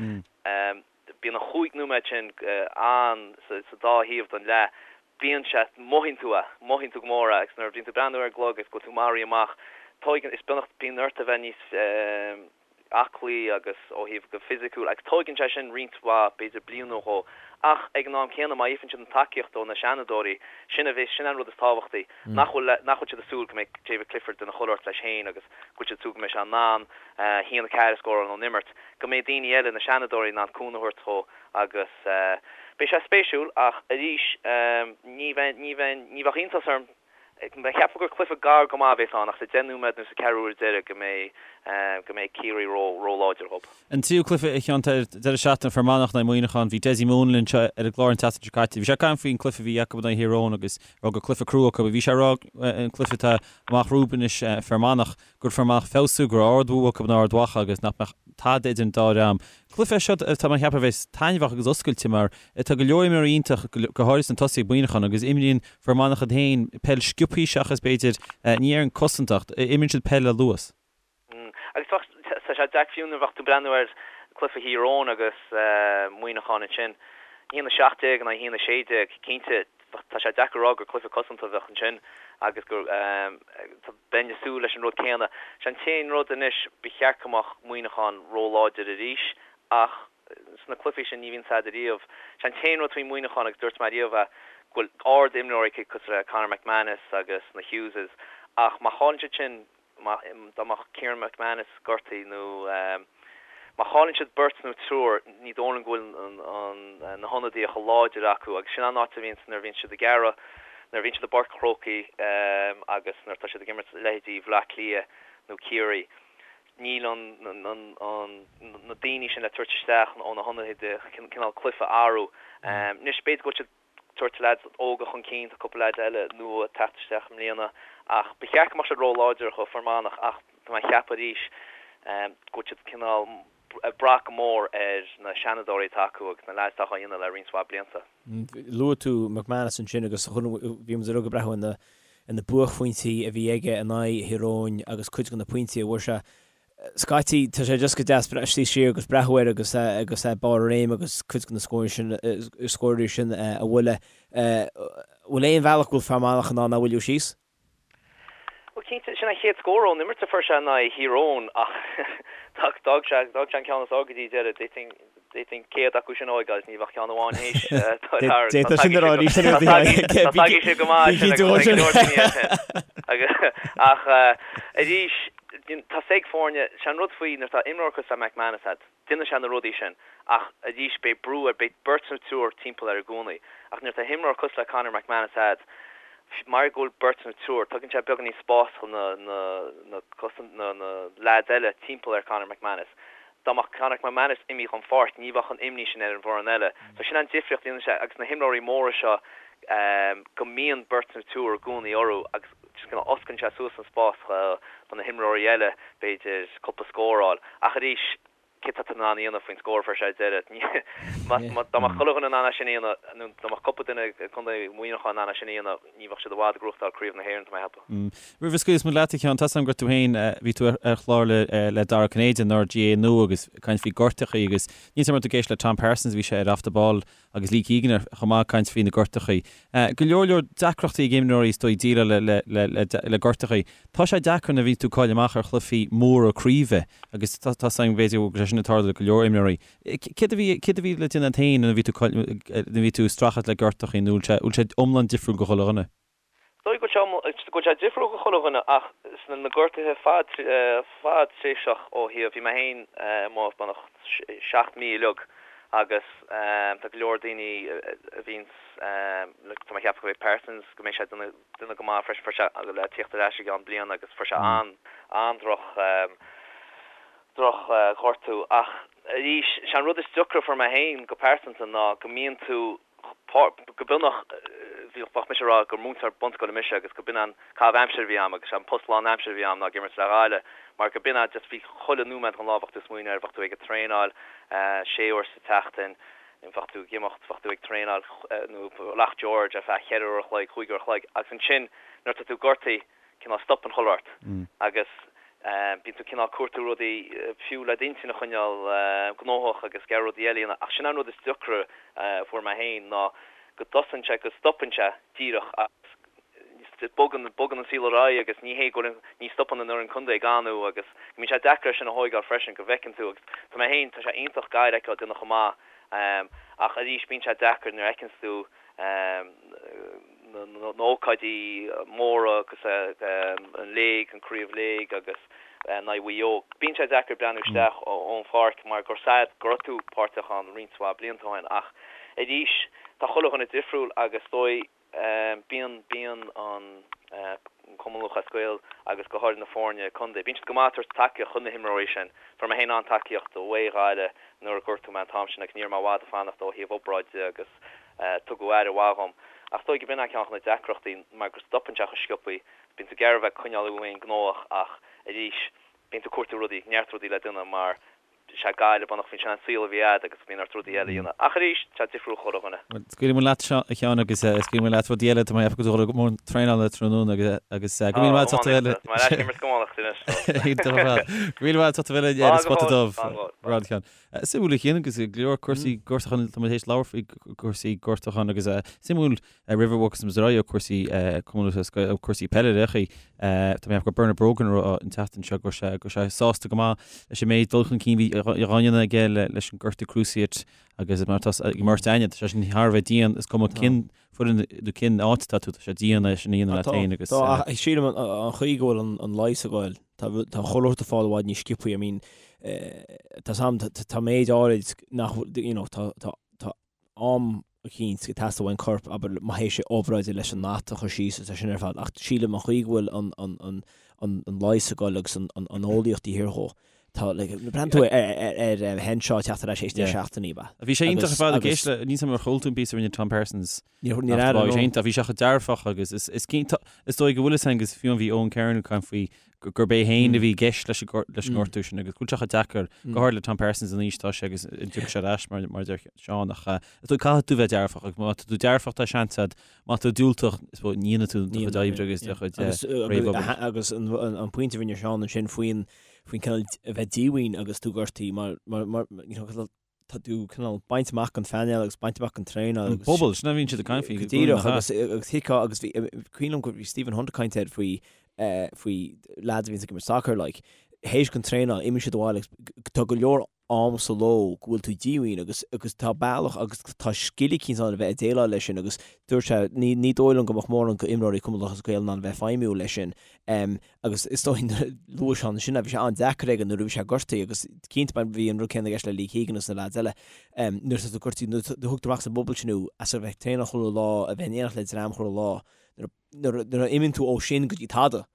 bíonn an chúig nóiméad sin ann sa dá thaobh den leath, bíonn sé, mothaíonn tú é, mothaíonn tú go mór é agus nuair a bhíonn tú ag breathnú ar an gclog agus go bhfuil tú maraithe amach, tóigeann, is beagnach, bíonn ort a bheith níos. aclaí agus ó thaobh go fisiciúil agus tóigeann sé sin roinnt mhaith, b'fhéidir bliain nó dhó. Ach ag an am céanna má fhaigheann siad an tacaíocht ó na seanadóirí, sin a bheas, sin an rud is tábhachtaí, nach bhfuil, nach bhfuil siad ag súil go mbeidh David Clifford ina chuile shórt leis féin agus go bhfuil siad ag súil go mbeidh sé in ann a haon 4 a scóráil ón imirt, go mbeidh daoine eile, na seanadóirí, in ann cúnamh a thabhairt dhó agus beidh sé spéisiúil ach arís ní bheidh, ní bheidh, ní bheadh iontas orm Cheapfá gur cluiche gar go maith a bhéas ann ach sa 10 nóiméad nó sa ceathrú uair deiridh go mbeidh go mbeidh Ciarraí ró róláidir dhób. An tríú cluiche a Sheáin ar deireadh seachtaine, Fear Manach in aghaidh Muineachán. Bhí Dessie Moon linn anseo ar an gclár an tseachtain seo caite. Bhí sé ag caint faoin cluiche a bhí acu in aghaidh Thír Eoghain agus a rá gur cluiche crua acu. Bhí sé ag rá an cluiche atá amach rompu anois Fear Manach gur Fear Manach feabhsú, go raibh ard-bhua acu in Ard Mhacha agus nach mbeadh tada idir an dá dhream. Cluiche é seo atá mé a cheapadh a bheas taitneamhach agus oscailte mar tá go leor imreoirí iontach, go háirithe sna tosaithe ag Muineachán agus imríonn Fear Manach iad féin peil sciobthaí seachas b'fhéidir, ní déarfainn cosanta ach imríonn siad peil le luas. Agus tá sé deacair fiú nuair a bheadh tú ag breathnú ar cluiche Thír Eoghain agus Muineachán ansin, 1-17 in aghaidh 1-16, cinnte tá sé deacair a rá gur cluiche cosanta a bheadh ansin agus go bheinn ag súil leis an rud céanna. Sé an t-aon rud anois, ba cheart go mbeadh Muineachán róláidir arís ach sna cluichí sin ní bhíonn tada riamh. Sé an t-aon rud faoi Mhuineachán agus dúirt mé riamh é, go bhfuil ard-imreoirí acu cosúil le Conor McManus agus na Hugheses ach má chailleann siad sin, má, dá mbeadh Kieran McManus gortaithe nó má chailleann siad beirt nó triúr, ní dóigh liom go bhfuil an, an, na hionadaithe chomh láidir acu agus sin an áit a bhíonns nuair a bhíonn siad ag iarraidh, nuair a bhíonn siad i bPáirc an Chrócaigh agus nuair atá siad ag imirt leithéidí Bhaile Átha Cliath nó Ciarraí. Níl an, na daoine sin le tabhairt isteach ó na hionadaithe cineál cluiche a athrú. Anois, b'fhéidir go bhfuil siad ag tabhairt leaids óga chun cinn, tá cúpla leaid eile nua ag teacht isteach i mbliana ach ba cheart go mbeadh siad ró-láidir do Fear Manach ach tá mé ag ceapadh arís go bhfuil siad cineál ag brath go mór ar na seanadóirí atá acu agus na leaids atá á dhéanamh le roinnt mhaith blianta. Luaigh tú McManus ansin agus bhí muid uilig ag breathnú ar na buaicphointí a bhí aige in aghaidh Thír Eoghain agus cuid de na pointí a fuair sé. Scaití, tá sé just go deas suí siar agus breathnú air agus agus é barr a réime agus cuid de na scóirí sin, scóirí sin a bhualadh. Bhfuil aon bhealach go bhfuil Fear Manach in ann é a mhoilliú síos? Bhuel, cinnte, sin an chéad scór ón imirt a fuair sé in aghaidh Thír Eoghain ach d'fhág sé an ceann is fearr go dtí deireadh. D'fhéadfainn 100 acu sin a fhágáil is ní bheadh ceann amháin théis dul thar. D'fhéadfadh sin a rá arís ar Tá tagaidh sé go maith sin agus go leor daoine air sin. Ach arís, tá 's ag foirne, sé an rud faoi nuair atá imreoir cosúil le McManus a'd, déanann sé na rudaí sin ach arís beidh brú air, beidh beirt nó triúr timpeall air i gcónaí. Ach nuair atá imreoir cosúil le Conor McManus a'd, mar go bhfuil beirt nó triúr, tugann sé beagáinín spás do na na na na na leaids eile timpeall ar Conor McManus. Dá mbeadh Conor McManus imithe ón pháirc ní bheadh an imní sin ar an bhfoireann eile. So sin an difríocht a dhéanann sé agus na himreoirí móra seo go mbíonn beirt nó triúr i gcónaí orthu agus just kind of osclaíonn sé suas an spás do na himreoirí eile b'fhéidir cúpla scór a fháil. Ach arís, céard atá tú in ann a dhéanamh faoin scór a fuair sé ar deireadh? Dá mbeadh chuile dhuine in ann é sin a dhéanamh, nó dá mbeadh cúpla duine i gContae Mhuineacháin in ann é sin a dhéanamh, ní bheadh siad i bhfad ag gnóthachtáil Craobh na hÉireann, tá mé ag ceapadh. Roimh a scaoilfeas muid leat, a Sheáin, tá 's agam gur tú féin, bhí tú ar chlár le Dara Ó Cinnéide, an GAA Nua agus ag caint faoi gortachaí agus níl 's agam an raibh tú ag éisteacht le Tom Parsons, bhí sé ar Off the Ball agus Lee Keegan ar chomh maith ag caint faoi na gortachaí. Go leor leor deacrachtaí ag imreoirí is dóigh déileáil le le le gortachaí. Tá sé deacair nuair a bhíonn tú ag cailleadh amach ar chluichí móra craoibhe agus tá 's agam b'fhéidir go bhfuil sé sin ag tarlú le go leor imreoirí. Céard a bhí céard a bhí le déanamh agat féin nuair a bhí tú nuair a bhí tú ag streachailt le gortachaí nó bhfuil sé bhfuil sé iomlán difriúil go chuile dhuine? Is dóigh go bhfuil sé go bhfuil sé difriúil go chuile dhuine ach sna na gortuithe fad fadtréimhseach ó thaobh, bhí mé féin amuigh beagnach 7 mí uilig agus tá go leor daoine a bhíonns tá mé ag ceapadh go mbeidh Parsons go mbeidh sé duine duine go maith freisin fuair sé le tíocht ar ais i gceann bliana agus fuair sé an an-droch droch ghortú ach arís sé an rud is deacra a fuair mé féin go pearsanta ná go mbíonn tú go beagnach, bheadh mise ag rá gur múinteoir bunscoile mise agus go b'in an caitheamh aimsire a bhí a'm agus an post lán aimsire a bhí a'm ná ag imirt le Gaillimh mar go b'in just bhí chuile nóiméad den lá bheadh tú ag smaoineamh air, bheadh tú ag traenáil sé uair sa tseachtain, bheadh tú ag imeacht, bheadh tú ag traenáil nó Loch George ar feadh cheithre uair a chloig, chúig uair a chloig agus ansin nuair atá tú gortaithe, cineál stopann chuile shórt agus bíonn tú cineál cuartú rudaí fiú le d'intinn a choinneáil gnóthach agus ag iarraidh rudaí eile a dhéanamh ach sin an rud is deacra a fuair mé féin ná go dtosaíonn sé, go stopann sé díreach agus bogann, bogann an saol ar aghaidh agus ní hé go bhfuil, ní stopann an fhoireann contae ag anú agus go mbíonn sé deacair é sin a thóigeáil freisin go bhfeiceann tú agus tá mé féin, tá sé iontach Gaillimh a fheiceáil ag déanamh chomh maith ach arís bíonn sé deacair nuair a fheiceanns tú na hócáidí móra agus an léig, an Craobh Léig agus in aghaidh Mhaigh Eo. Bíonn sé deacair breathnú isteach ón pháirc mar gur sad go raibh tú páirteach ann roinnt mhaith blianta ó shin ach arís tá chuile dhuine difriúil agus is dóigh bíonn bíonn an Cumann Lúthchleas Gael agus go háirid na foirne contae, bíonn siad go maith ag tabhairt tacaíocht chun na himreoirí sin. Fuair mé féin an-tacaíocht ó Ghaillimh nuair a gortaíodh mé an t-am sin agus ní raibh mé i bhfad ag fanacht ó thaobh obráide agus tugadh aire mhaith dhom. Ach is dóigh go b'in é ceann de na deacrachtaí mar go stopann sé chomh sciobthaí. Bíonn tú ag iarraidh a bheith ag coinneáil thú féin gnóthach ach arís bíonn tú ag cuartú rudaí, neart rudaí le déanamh mar sé Gaillimh beagnach bhí sin an saol a bhí a'd agus bíonn ort rudaí eile a dhéanamh. Ach arís, tá sé difriúil chuile dhuine. Bhuel, scaoilfidh muid leat, a Sheáin, agus scaoilfidh muid leat rudaí eile, tá mé ag ceapadh go bhfuil tú ag traenáil tráthnóna agus agus go míle maith agat a bheith Tá mé ar ais ag imirt go amárach anois. Iontach ar fad. Go míle maith agat a bheith linn ar an Spota Dubh. Rud a Sheáin. Suimiúil a Chian agus go leor cúrsaí gortúcháin, tá muid théis labhairt faoi cúrsaí gortúcháin agus suimiúil roimh a bhogfas muid ar aghaidh ó cúrsaí Cumann Lúthchleas Gael, cúrsaí peile ar chaoi. Tá mé ag ceapadh gur Bernard Brogan a raibh an tseachtain seo go raibh sé go raibh sé sásta go maith leis an méid dul chun cinn bhí á dhéanamh aige leis an gortú cruciate agus mar atá ag imirt aithne, tá sé sin thar a bheith dian, is cuma cén foireann nó cén áit atá tú, tá sé dian é sin a dhéanamh leat féin agus. Tá, ach sílim an chaoi go bhfuil an leigheas ag goil, tá chuile shórt ag fáil i bhfad níos sciobthaí, I mean, tá sam, tá méid áirid nach, you know, tá, tá, tá am eicínt ag teastáil ón corp, abair, má théis obráide leis an that a chur síos is é sin ar fad, ach sílim an chaoi go bhfuil an, an, an, an, an leigheas ag goil agus an, an, an eolaíocht taobh thiar dhó, Tá, like, breathnaíonn tú ar, ar, ar Henshaw ag teacht ar ais théis 10 seachtainí, ba. Bhí sé iontach ar fad ag éisteacht le, níl 's agam ar chuala tú an píosa a rinne Tom Parsons. Níor, níor airigh, Bhí sé iontach, bhí sé chomh dearfach agus is, is cinnte, is dóigh go bhfuil fhios agus fiú bhí Eoin Kernan ag caint faoi gurb é féin a bhí i gceist leis an leis an ngortú sin agus go bhfuil sé chomh deacair, go háirid le Tom Parsons an aois atá sé agus an dtiocfaidh sé ar ais mar, mar a deir Seán ach is dóigh caithfidh tú bheith dearfach agus má tá tú dearfach tá seans agat, má tá tú diúltach is dóigh ní dhéanfaidh tú do chuid oibre agus do chuid réamhobair. Agus an pointe a rinne Seán ansin faoin. faoin cineál a bheith díomhaoin agus tú gortaithe mar mar mar you know tá tú cineál bainte amach den phainéal agus bainte amach den traenáil agus. An bubble, sin a bhíonn siad ag caint faoi. Go díreach agus agus thuigfeá agus bhí cuimhin liom go bhí Stephen Hunt ag caint air faoi faoi lads a bhíonns ag imirt soccer like théis den traenáil imíonn siad abhaile agus tá go leor am sa ló go bhfuil tú díomhaoin agus agus tá bealach agus tá scil eicínt ann a bheith ag déileáil leis sin agus dúirt sé ní ní dóigh liom go mbeadh mórán go imreoirí Cumann Lúthchleas Gael in ann a bheith feidhmiúil leis sin um, agus is dóigh luaigh sé ansin bhí sé an-deacair aige nuair a bhí sé gortaithe agus cinnte bhí an rud céanna i gceist le Lee Keegan agus na lads eile um, nuair atá tú gortaithe nuair a thugtar amach as an bpobal sin thú as a bheith ag traenáil chuile lá a bheith in éineacht le dream chuile lá nuair nuair a imíonn tú ó sin go dtí tada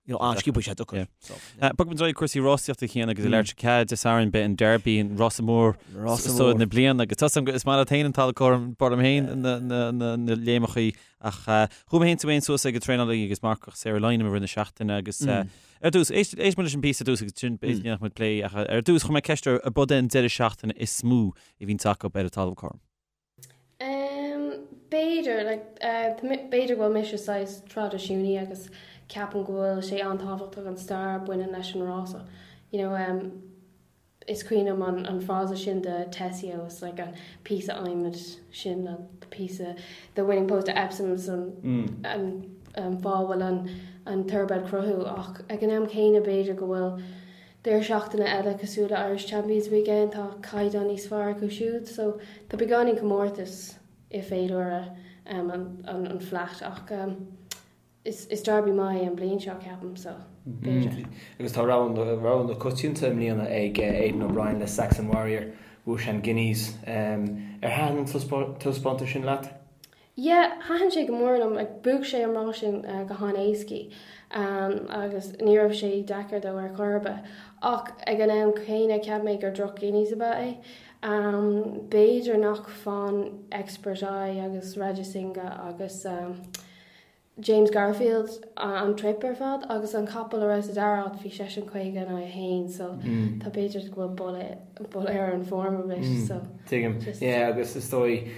you know, an-sciobtha sé deacair. So, yeah. Bogfaidh muid ar aghaidh cúrsaí rásaíochta chéanna agus i leir cead Dé Sathairn beidh an Derby an rása mór so na bliana agus tá is maith leat féin an talamh cothrom b'fhearr liom féin na léimeachaí ach chuaigh mé féin tú féin suas ag an traenálaí agus marcach Sarah Lynam i rith na seachtaine agus ar dtús éist éist muid leis an bpíosa ar dtús agus sin b'fhéidir go ndéanfaidh muid plé ach ar dtús chuir mé ceist ar ab é an deireadh seachtaine is mó a bhíonns acu ar an talamh cothrom. B'fhéidir, like, b'fhéidir go bhfuil mise saghas traidisiúnaí agus ceapaim go bhfuil sé an-tábhachtach an stair a bhaineann leis an rása. You know, is cuimhin liom an, an frása sin de Tesio, it's like an píosa adhmaid sin, an píosa, the winning post at Epsom is an, an, an fáth a bhfuil an, an thoroughbred cruthú ach ag an am céanna b'fhéidir go bhfuil Deireadh seachtaine eile cosúil le Irish Champions Weekend, tá caighdeán níos fearr acu siúd so tá beagáinín comórtas i féilire an Flat ach is Derby maith é an bliain seo ceapaim so b'fhéidir. Agus tá rogha na coitianta i mbliana ag Aidan O'Brien le Saxon Warrior, bhuaigh sé an Guineas. Ar thaitin an taispeántas sin leat? Yeah, thaitin sé go mór liom. Like, bhuaigh sé an rás sin go han-éascaí agus ní raibh sé deacair dó ar chor ar bith. Ach ag an am céanna, cheap mé gur droch Guineas ab ea é. B'fhéidir nach fan Expert Eye agus Rajasinghe agus James Garfield an trip ar fad agus an capall a raibh sa dara háit bhí seisean 50 in aghaidh 1 so tá b'fhéidir go bhfuil boladh ar an form a bit so. Tuigim. Yeah, agus is dóigh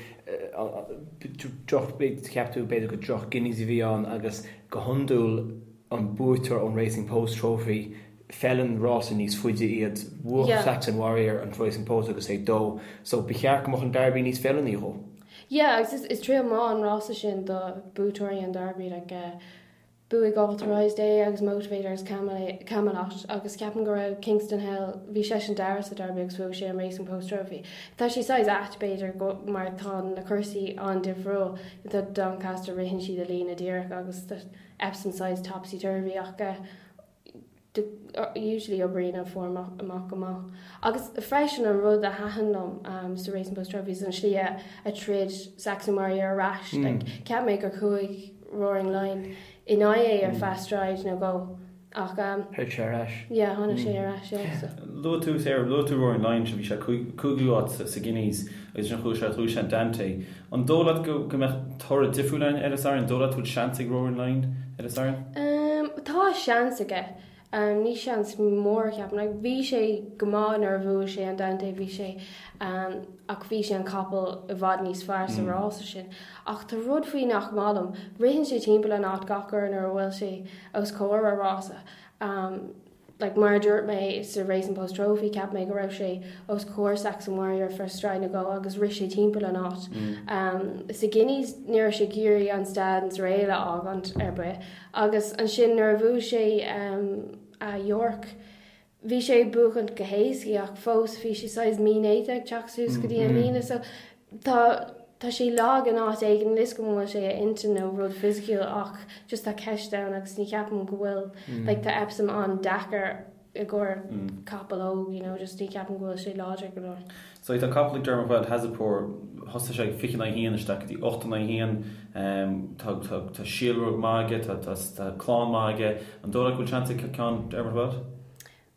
droch, cheap tú b'fhéidir gur droch Guineas a bhí ann agus go hiondúil an buaiteoir ón Racing Post Trophy, feileann rása níos faide iad. Bhuaigh Saxon Warrior an Racing Post agus é dó, so ba cheart go mbeadh an Derby níos feiliúnaí dhó. Yeah, agus is triail maith an rása sin do buaiteoirí an Derby, like Bhuaigh Authorised é agus Motivator agus Camelot agus ceapaim go raibh Kingston Hill, bhí seisean dara sa Derby agus bhuaigh sé an Racing Post Trophy. Tá sé saghas ait b'fhéidir go mar tá na cúrsaí an-difriúil, tá Doncaster ritheann siad i líne díreach agus tá Epsom saghas topsy turvy ach eh usually oibríonn an form amach go maith. Agus freisin an rud a thaitin liom sa Racing Post Trophy is an slí a troid Saxon Warrior ar ais. Like, cheap mé gur chuaigh Roaring Lion in aghaidh é ar feadh stride nó dhó ach Tháinig sé ar ais. yeah, tháinig sé ar ais, yeah. So. Luaigh tú, Sarah, luaigh tú Roaring Lion, bhí sé cúigiú áit sa Guineas agus ansin chuaigh sé, chuaigh sé an Dante. An dóigh leat go mbeadh toradh difriúil ann ar an Satharn? An dóigh leat go bhfuil seans ag Roaring Lion ar an Satharn? Tá seans aige. Ní seans mór, ceapaim. Like, bhí sé go maith nuair a bhuaigh sé an Dante, bhí sé, ach bhí sé an capall i bhfad níos fearr sa rása sin. Ach tá rud faoi nach maith liom. Ritheann sé timpeall an áit gach uair nuair a bhfuil sé os comhair a rása. Like, mar a dúirt mé sa Racing Post Trophy, cheap mé go raibh sé os comhair Saxon Warrior ar feadh stride nó dhó agus rith sé timpeall an áit. Sa Guineas ní raibh sé ag iarraidh an stand is rail a fhágaint ar bith agus ansin nuair a bhuaigh sé a York, bhí sé ag buachaint go héascaí ach fós bhí sé saghas mínéata ag teacht suas go dtí an líne so tá tá sé lag in áit éigin, níl 'fhios agam an bhfuil sé a intinn nó rud fisiciúil ach just tá ceist ann agus ní cheapaim go bhfuil like tá Epsom an-deacair i gcomhair capall óg you know just ní cheapaim go bhfuil sé láidir go leor. So tá capall ag Dermot Weld, Hazapour, thosaigh sé ag 20 in aghaidh 1 isteach go dtí 8 in aghaidh 1, tá tá tá síolrúg maith aige, tá tá tá clann maith aige, an dóigh leat go bhfuil seans ag ceann Dermot Weld?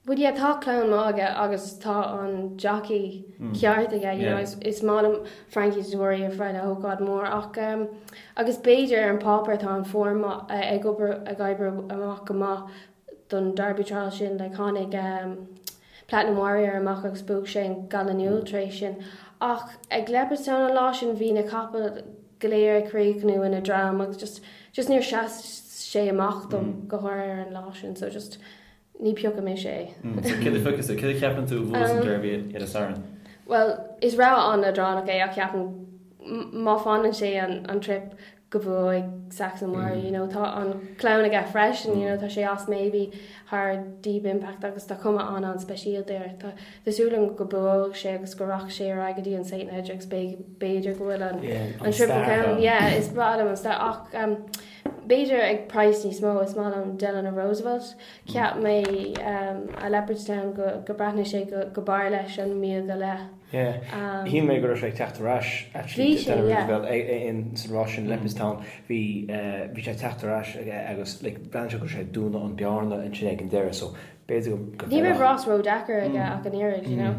Bhuel yeah tá clann maith aige agus tá an jockey ceart aige you know is is maith liom Frankie Dettori ar feadh le hócáid mór ach um, agus b'fhéidir ar an páipéar tá an form ag obair ag oibriú amach go maith don Derby Trial sin like tháinig um, Platinum Warrior amach agus bhuaigh sé an Gallinule tar éis sin ach ag Leopardstown an lá sin bhí na capaill go léir ag críochnú ina dream agus just just níor sheas sé amach dom go háirithe ar an lá sin so just. Ní piocfaidh mise é. So céard a phiocfas tú? Céard a cheapann tú a bhuafas an Derby ar an Satharn? Bhuel, is rogha an-leadránach é ach ceapaim má fanann sé an trip go bhuafaidh Saxon Warrior, you know, tá an clann aige freisin, you know, tá sé as Maybe thar Deep Impact agus tá cuma an-an-speisialta air. Tá súil agam go buafaidh sé agus go rachaidh sé ar aghaidh go dtí an St Leger agus b'fhéidir go bhfuil an Triple Crown, yeah, is breá liom an stair ach b'fhéidir ag praghas níos mó, is maith liom Delano Roosevelt. Cheap mé i Leopardstown go breathnaigh sé go b'fhearr leis an míle go leith. Yeah. Shíl mé go raibh sé ag teacht ar ais actually Bhí sé, yeah. Delano Roosevelt in san rás sin Leopardstown. Bhí bhí sé ag teacht ar ais agus like bhreathnaigh sé go raibh sé ag dúnadh an bearna ansin ag an deireadh so b'fhéidir go Ní raibh rás ródheacair aige ach an oiread, you know.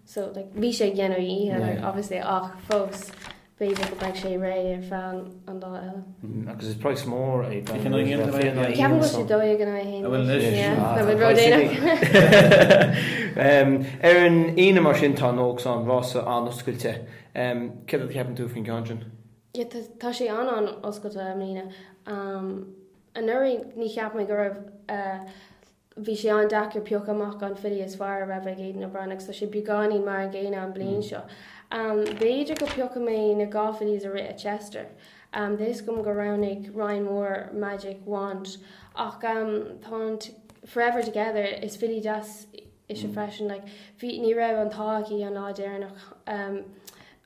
So like bhí sé ag déanamh a dhícheall like obviously ach fós B'fhéidir go mbeidh sé réidh ar feadh an lá eile. Agus is praghas mór é Ceapaim go bhfuil sé 12 in aghaidh 1 anois. Tá muid ródhéanach. Ar an Aoine mar sin tá an Oaks ann, rása an-oscailte. Céard a cheapann tú faoin gceann sin? Yeah, tá sé an-an-oscailte i mbliana. Anuraidh ní cheap mé go raibh Bhí sé an-deacair piocadh amach an filly is fearr a raibh ag Aidan O'Brien agus tá sé beagáinín mar an gcéanna an bliain seo. B'fhéidir go piocfaidh mé na 2 fillies a rith i Chester. Tá fhios agam gur roghnaigh Ryan Moore Magic Wand ach tá an Forever Together, is filly deas ise freisin. Like, bhí, ní raibh an t-ádh aici an lá deireanach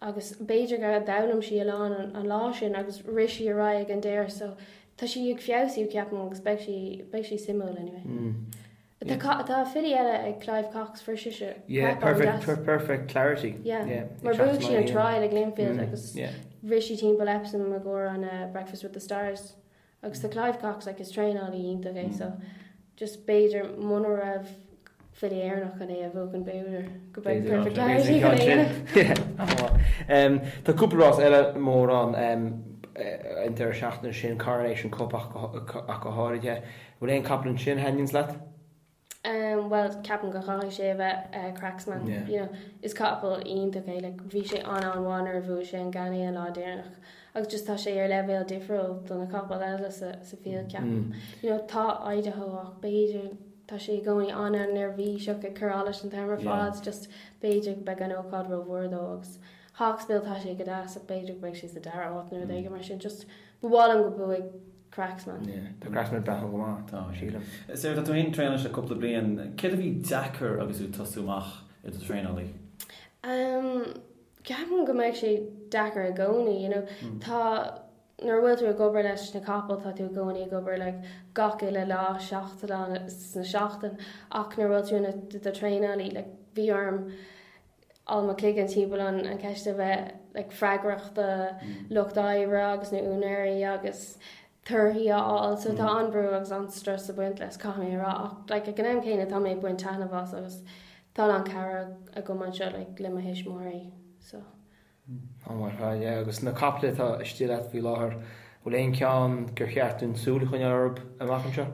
agus b'fhéidir gur d'fhoghlaim sí a lán an lá sin agus rith sí ar aghaidh ag an deireadh so Tá sí ag feabhsú, ceapaim, agus beidh sí, beidh sí suimiúil anyway. Tá, tá filly eile ag Clive Cox, fuair sise Yeah, crap perfect, an-deas. per, perfect clarity. Yeah, Yeah, mar ag teacht bhuaigh sí an trial ag Lingfield agus Yeah. rith sí timpeall Epsom i gcomhair an uh, Breakfast with the Stars. Agus tá Clive Cox, like, is traenálaí iontach é, so just b'fhéidir muna raibh filly Éireannach chun é a bhuachan b'fhéidir go mbeidh Perfect Clarity chun é a dhéanamh. Tá cúpla rás eile mór ann an deireadh seachtaine sin, Coronation Cup ach go háirithe. Bhfuil aon capall ansin a thaitníonns leat? Bhuel, ceapaim go gcaithfidh sé a bheith Cracksman. You know, is capall iontach é, like bhí sé an-an-mhaith nuair a bhuaigh sé an Ganay an lá deireanach agus just tá sé ar leibhéal difriúil do na capaill eile sa field ceapaim. You know, tá Idaho ach b'fhéidir Tá sé i gcónaí an-an-neirbhíseach ag cur allais an t-am ar fad, just b'fhéidir go mbeidh an ócáid rómhór dó agus Hawksbill tá sé go deas ach b'fhéidir go mbeidh sé sa dara háit nó rud éigin mar sin, just ba mhaith liom go mbuafaidh Cracksman. Yeah, tá Cracksman ag breathnú go maith, tá, sílim. Sarah, tá tú féin ag traenáil anois le cúpla bliain, céard a bhí deacair agus tú ag tosú amach i do thraenálaí? Um, ceapaim go mbeidh sé deacair i gcónaí, you know, tá Nuair a bhfuil tú ag obair leis na capaill tá tú i gcónaí ag obair like gach uile lá, 7 lá sna seachtain ach nuair a bhfuil tú ina do traenálaí like bhí orm all mo chloigeann timpeall an an ceist a bheith like freagrach do lucht oibre agus na úinéirí agus torthaí a fháil so tá an-brú agus an-strus ag baint leis caithfidh mé a rá ach like ag an am céanna tá mé ag baint taitneamh as agus tá a lán cabhair agam anseo like le mo thuismitheoirí so. An-mhaith ar fad, yeah. Agus na caiple atá istigh leat faoi láthair, bhfuil aon cheann gur cheart dúinn súil a choinneáil orthu amach anseo?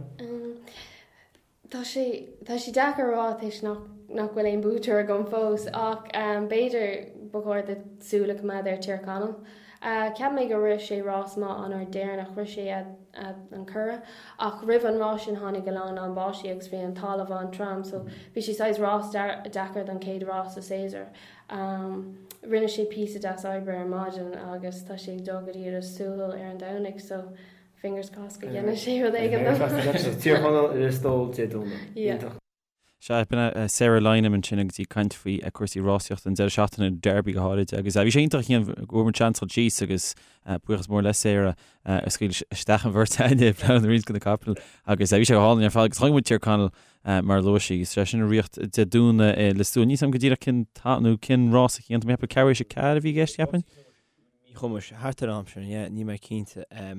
Tá sé, tá sé deacair a rá toisc nach, nach bhfuil aon buaiteoir agam fós ach b'fhéidir ba chóir duit súil a choimeád ar Tír Chonaill. Cheap mé gur rith sé rás maith an uair deireanach, rith sé an Curragh ach roimh an rás sin tháinig a lán lán báistí agus bhí an talamh an-trom so bhí sé saghas rás deacair don chéad rás sa séasúr. Rinne sé píosa deas oibre ar maidin agus tá sé ag dul go dtí Ros Súil ar an Domhnach so fingers crossed go ndéanfaidh sé rud éigin dom. Tír Chonaill i Lios Póil Dé Domhnaigh. Iontach. Sea, b'in é Sarah Lynam ansin agus í ag caint faoi cúrsaí rásaíochta an deireadh seachtaine, an Derby go háirid. Agus bhí sé iontach a Chian go bhfuair muid seans dul síos agus buíochas mór le Sarah a scaoil isteach an bheirt againne ag plé roinnt de na capaill agus bhí sé go hálainn ar fad agus chonaic muid Tír Chonaill Mar a luaigh sí, is é sin ag ritheacht Dé Domhnaigh i Lios Tuathail. Níl 's agam go díreach cén t-am nó cén rás a Chian, tá mé ag ceapadh ceathrú éis a 4 a bhí i gceist, cheapfainn. Míchumais, thart ar an am sin, yeah, níl mé cinnte. Tá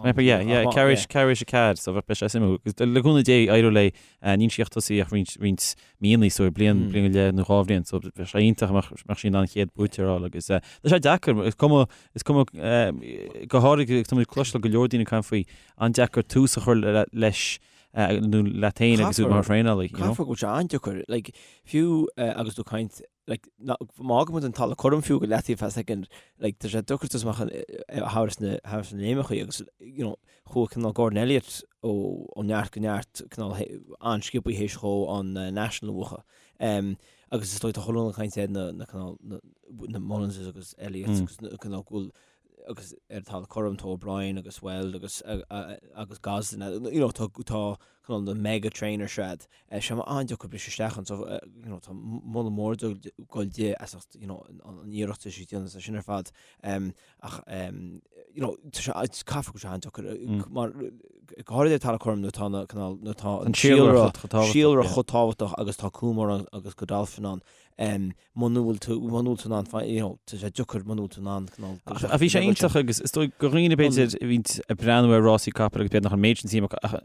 mé ag ceapadh, yeah, yeah, ceathrú éis, ceathrú éis a 4, so bheadh sé suimiúil. Agus le cúnamh Dé, éireoidh léi, níl sí ach tosaithe ach roinnt, roinnt míonna, so bliain, bliain go leith nó dhá bhliain, so bheadh sé iontach dá mbeadh, mbeadh sí in ann an chéad buaiteoir a fháil agus tá sé deacair, is cuma, is cuma, go háirithe, tá muid ag cloisteáil go leor daoine ag caint faoi, an-deacair tús a chur leis nó leat féin agus tú mar thraenálaí. Caithfidh go bhfuil sé an-deacair, like, fiú agus tú ag caint. Like, má fhágann muid an talamh cothrom fiú go leataobh feadh soicind, like, tá sé deacair tús amach thar sna thar sna léimeachaí agus, you know, chuaigh cineál Gordon Elliott ó ó neart go neart cineál an-sciobthaí théis dhó an National a bhuachan. Um, agus is dóigh tá chuile dhuine ag caint ar na na cineál na na Mullinses agus Elliots agus na cineál go bhfuil agus ar an talamh cothrom tá O'Brien agus Weld agus agus Gosden, you know, tá tá cineál na mega trainers siad. Sé mar an-deacair briseadh isteach ann so you know, tá moladh mór ag goil di as ucht you know, an iarracht atá sí ag déanamh sin ar fad. Ach you know, tá sé caithfidh go bhfuil sé an-deacair mar go háirithe ar talamh cothrom nuair atá na cineál nuair atá an síolra síolra chomh tábhachtach agus tá Coolmore agus Godolphin ann. Muna bhfuil tú, muna bhfuil tú in ann, you know, tá sé deacair muna bhfuil tú in ann cineál. Ach bhí sé iontach agus is dóigh do dhaoine b'fhéidir a bhíonn ag breathnú ar rásaí capall agus b'fhéidir nach an méid sin suim acu ach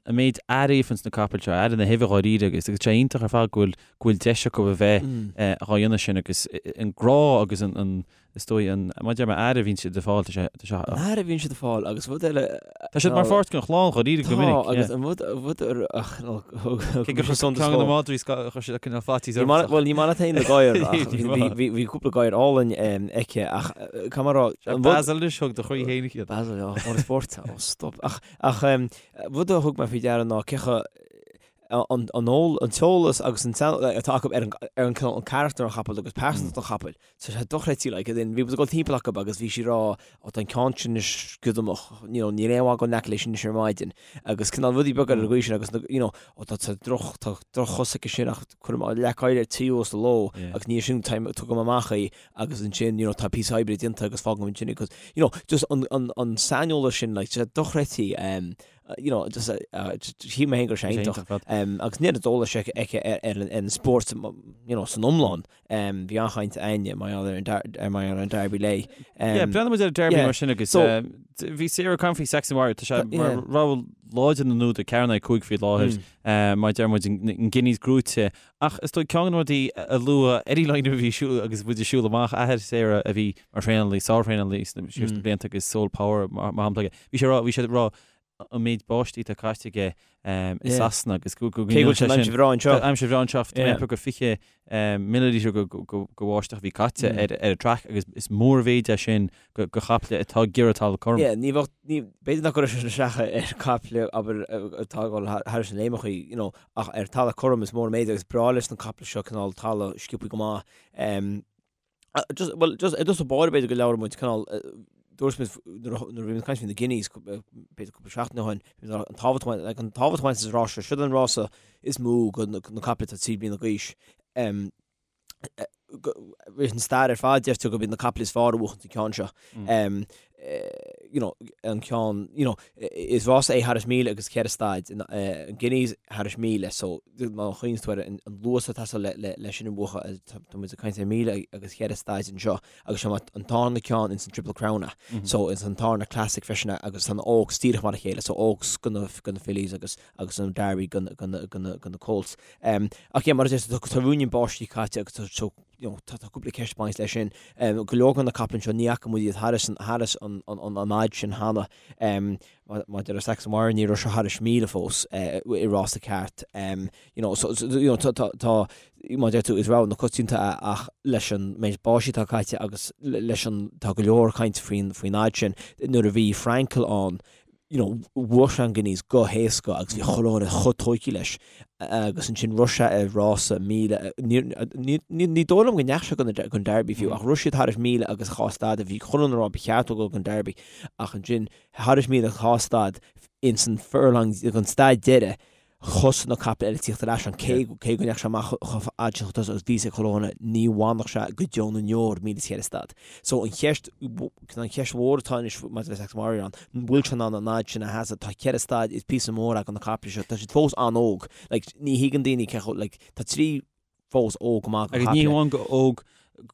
an méid aire a fhaigheanns na capaill seo, aire na huibhe dháiríre agus agus sé iontach ar fad go bhfuil go bhfuil deis acu a bheith dhá dhéanamh sin agus an grá agus an Is dóigh an, mar a deir mé, aire a bhíonn siad ag fáil, tá sé, tá sé. An aire a bhíonn siad ag fáil agus rud eile. Tá siad mar pháirt den chlann dháiríre go minic. Tá agus an rud, rud a Cé gur chuir ceann de na madraí chuir siad cineál faitíos ormsa. Bhuel ní maith leat féin na gadhair ach bhí, bhí cúpla gadhar álainn aici ach caithfidh mé a rá. Basil anois thug do chroí féin iad. Basil, ó, Autosport, ó stop. Ach, ach rud a thug mé faoi deara ná cé chomh an t-eolas agus an atá acu ar an ar an cineál an carachtar an chapaill agus pearsantacht an chapaill. Tá sé dochreidte like as in bhí muid ag dul timpeall acu agus bhí sí ag rá ó tá an ceann sin anois giodamach you know níl aon mhaith dul in aice leis anois ar maidin agus cineál rudaí beaga ar an gcaoi sin agus you know ó tá tá droch tá droch-chos aici sin ach cuirim leac oighir ar tí sa ló agus ní sin time tugaim amach í agus ansin you know tá píosa oibre déanta agus fágaim ansin í 'cause you know just an an an saineolas sin like tá sé dochreidte um, you know, just, uh, shíl mé féin go raibh sé iontach. Um, agus an oiread eolais aici aici ar, ar, an, ar an spórt you know, san iomlán. Um, bhí an-chaint againne mar gheall ar an dar- ar mar gheall ar an Derby léi. Um, Yeah, breathnaíonn muid ar an Derby yeah. mar sin agus So- um, bhí Sarah ag caint faoi Saxon Warrior, tá sé mar yeah. rogha láidir na n-údar 4-5 faoi láthair, Mm. uh, mar deir muid an an Guineas gnóite. Ach is dóigh ceann de na rudaí a luadh Eddie Lynam a bhí ag siúl agus muid ag siúl amach athair Sarah a bhí mar thraenálaí, sárthraenálaí sna mm. na blianta agus Sole Power mar shampla aige. Bhí sé rá, bhí sé rá an méid báistí atá caite aige i Sasana agus go go Cé go bhfuil sé aimsir bhreá anseo. Aimsir bhreá anseo tá go 20 millilítear de bháisteach a bhí caite ar ar an track agus is mórmhéid é sin do chaiple atá ag iarraidh talamh cothrom. Yeah, ní bheadh, ní, b'fhéidir nach gcuirfeadh sé sin isteach ar chaiple abair atá ag dul thairis na léimeachaí, you know, ach ar talamh cothrom is mór an méid agus breá leis na caiple seo cineál talamh sciobthaí go maith. Just, well, just, i dtús báire b'fhéidir go labhraigh muid cineál, dúirt muid nuair a bhí muid ag caint faoi na Guineas, b'fhéidir cúpla seachtain ó shin, an tábhacht, like, an tábhacht a bhaineann leis an rás seo, siod an rása is mó do na caiple atá 3 bliana d'aois. Leis an stair ar fad deirtear gurb iad na caiple is fearr a bhuachann an ceann seo. You know, an ceann, you know, is rása é thairis 1,000 agus 4 staid, an Guineas thairis 1,000, so má chuimhníonn tú ar an luas atá ag teastáil le sin a bhuachan, tá muid ag caint ar 1,000 agus 4 staid anseo agus seo an tarna ceann ins an Triple Crown so ins an tarna Classic freisin agus tá na Oaks díreach mar a chéile, so Oaks do na do na fillies agus agus an Derby do na do na do na do na Colts. Ach yeah, mar a deir tú, tá ruainnín báistí caite agus tá so you know, tá cúpla ceist ag baint leis sin. Go leor de na caiple anseo ní fhaca muid iad thairis an thairis an an an fhad sin cheana. Maidir le Saxon Warrior ní raibh sé thairis 1,000 fós i rása ceart. You know, so, so, you know, tá, tá, tá, mar a deir tú, is rogha na coitianta é ach leis an méid báistí atá caite agus leis an, tá go leor caint faoin, faoin fhad sin. Nuair a bhí Frankel ann, you know, bhuaigh sé an Guineas go héasca agus bhí chuile dhuine chomh tóigthe leis agus ansin rith sé ar rása 1,000, ní, ní, ní dóigh liom go ndeachaigh sé don, don Derby fiú ach rith siad thairis 1,000 agus 2 staid a bhí chuile dhuine ag rá ba cheart dó dul don Derby ach ansin thairis 1,000 agus 2 staid ins an furlong, an staid deiridh thosaigh na caiple eile ag tíocht ar ais ann cé cé go ndeachaigh sé amach chomh fada sin chun tosaigh agus bhí a fhios ag chuile dhuine ní bhainfeadh sé go deo na ndeor 1,004 staid. So an cheist an cheist mhór atá anois maidir le Saxon Warrior an bhfuil sé in ann an fhad sin a sheasamh tá ceithre staid is píosa mór do na caiple seo tá siad fós an-óg like ní thuigeann daoine cé chomh like tá trí fós óg go maith do Agus ní hamháin go óg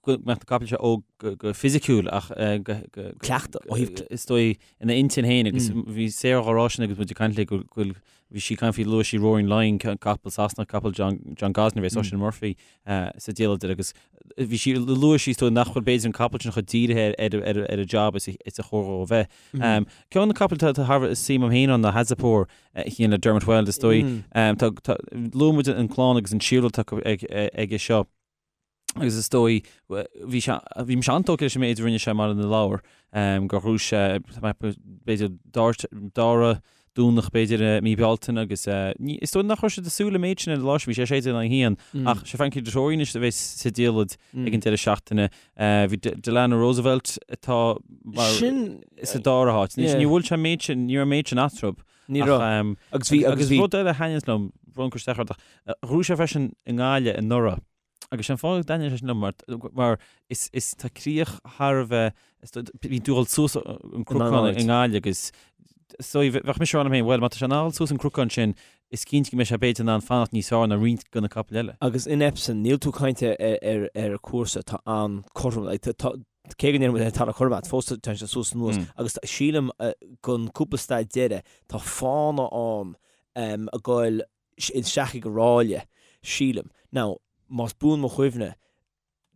go mbeadh na caiple seo óg go fisiciúil ach go cleachtadh ó thaobh is dóigh ina intinn féin agus bhí Sarah á rá sin agus muid ag caint léi go bhfuil bhí sí ag caint faoi luaigh sí Roaring Lion capall Sasanach capall John John Gosden a bhí Oisin Murphy sa diallait agus bhí sí luaigh sí is dóigh nach bhfuil b'fhéidir an capall sin chomh dírithe ar ar ar an job is is a chóir dó a bheith. Ceann de na capaill atá thar a bheith suim agam féin ann ná Hazapour a théann le Dermot Weld is dóigh. Tá luaigh muid an clann agus an síolra atá aige seo. Agus is dóigh, bhí sé, bhí mise an-tógtha leis an méid a rinne sé i mBaile na Lobhar, gur ghnóthaigh sé, b'fhéidir, dara Domhnach b'fhéidir i mí Bealtaine agus is dóigh nach raibh siad ag súil le méid sin ar an lá sin, bhí sé 16 in aghaidh 1, ach sé Frankie Dettori anois a bheas sa diallait ag an deireadh seachtaine. Bhí Delano Roosevelt atá mar sa dara háit. Ní bhfuil sé an méid sin, ní raibh an méid sin eatarthu. Ní raibh. Agus bhí, agus bhí. Agus rud eile a thaitníonns liom, brón cur isteach ort ach, ghnóthaigh sé freisin i nGaillimh anuraidh. Agus sé an fáth go dtaitníonn sé sin liom mar, mar is, is tá críoch thar a bheith, is do, bíonn tú ag dul suas an cnocán i nGaillimh agus so bheadh mise ag rá liom féin, bhuel má tá sé in ann dul suas an cnocán sin, is cinnte go mbeidh sé b'fhéidir in ann fanacht níos fearr ná roinnt de na capaill eile. Agus in Epsom, níl tú ag caint ar, ar, ar cúrsa atá an-cothrom, like, tá, cé go ndéarfaidh muid tá cothrom ait, fós tá sé suas anuas agus sílim gon cúpla staid deiridh tá fána ann ag goil isteach ag an ráille, sílim. Now, más buan mo chuimhne,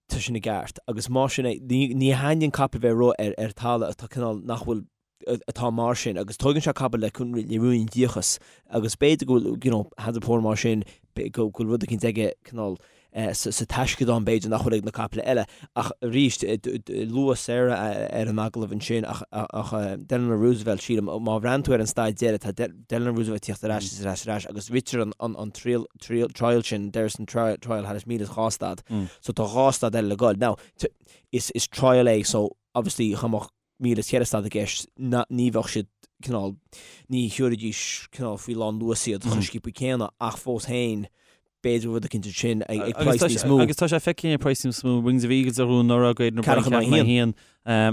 tá sin i gceart. Agus más sin é, ní, ní thaitníonn capall bheith ag rith ar, ar talamh atá cineál nach bhfuil, atá mar sin. Agus tóigeann sé capall le, le ruainnín díocas. Agus b'fhéidir go bhfuil, you know, Hands of Power mar sin, go bhfuil rud eicínt aige cineál, sa taisceadán b'fhéidir nach bhfuil ag na caiple eile. Ach arís, luadh Sarah ar an agallamh ansin ach Delano Roosevelt, sílim, má bhreathnaíonn tú ar an staid deiridh, tá Delano Roosevelt ag tíocht ar ais is ar ais ar ais agus ritear an trial sin, Derrison Trial thar 1002 staid. So tá dhá staid eile le goil. Now, is trial é so obviously dá mbeadh 1004 staid i gceist, ní bheadh siad cineál, ní thiúrfaidís cineál faoi lán luas iad chomh sciobtha céanna ach fós féin b'fhéidir rud eicínt ansin ag praghas níos mó. Agus tá sé feicthe ag praghas níos mó, Wings of Eagles a ghnóthaigh anuraidh, Aidan O'Brien ceathrú in aghaidh a haon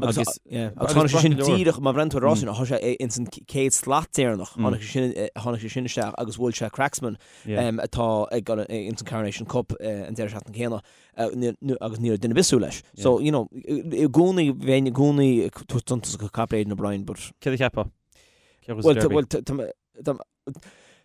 agus agus tháinig sé sin díreach má bhreathnaíonn tú ar an rás sin tá sé ins an chéad slat deireanach tháinig sé sin tháinig sé sin isteach agus bhuail sé Cracksman atá ag dul ins an Coronation Cup an deireadh seachtaine céanna. agus ní raibh duine ar bith ag súil leis. So, you know, i gcónaí, bheinn i gcónaí ag tabhairt suntas do chapall Aidan O'Brien, but. Céard a cheapfá? Cé a bhuafaidh Derby? Bhuel, tá,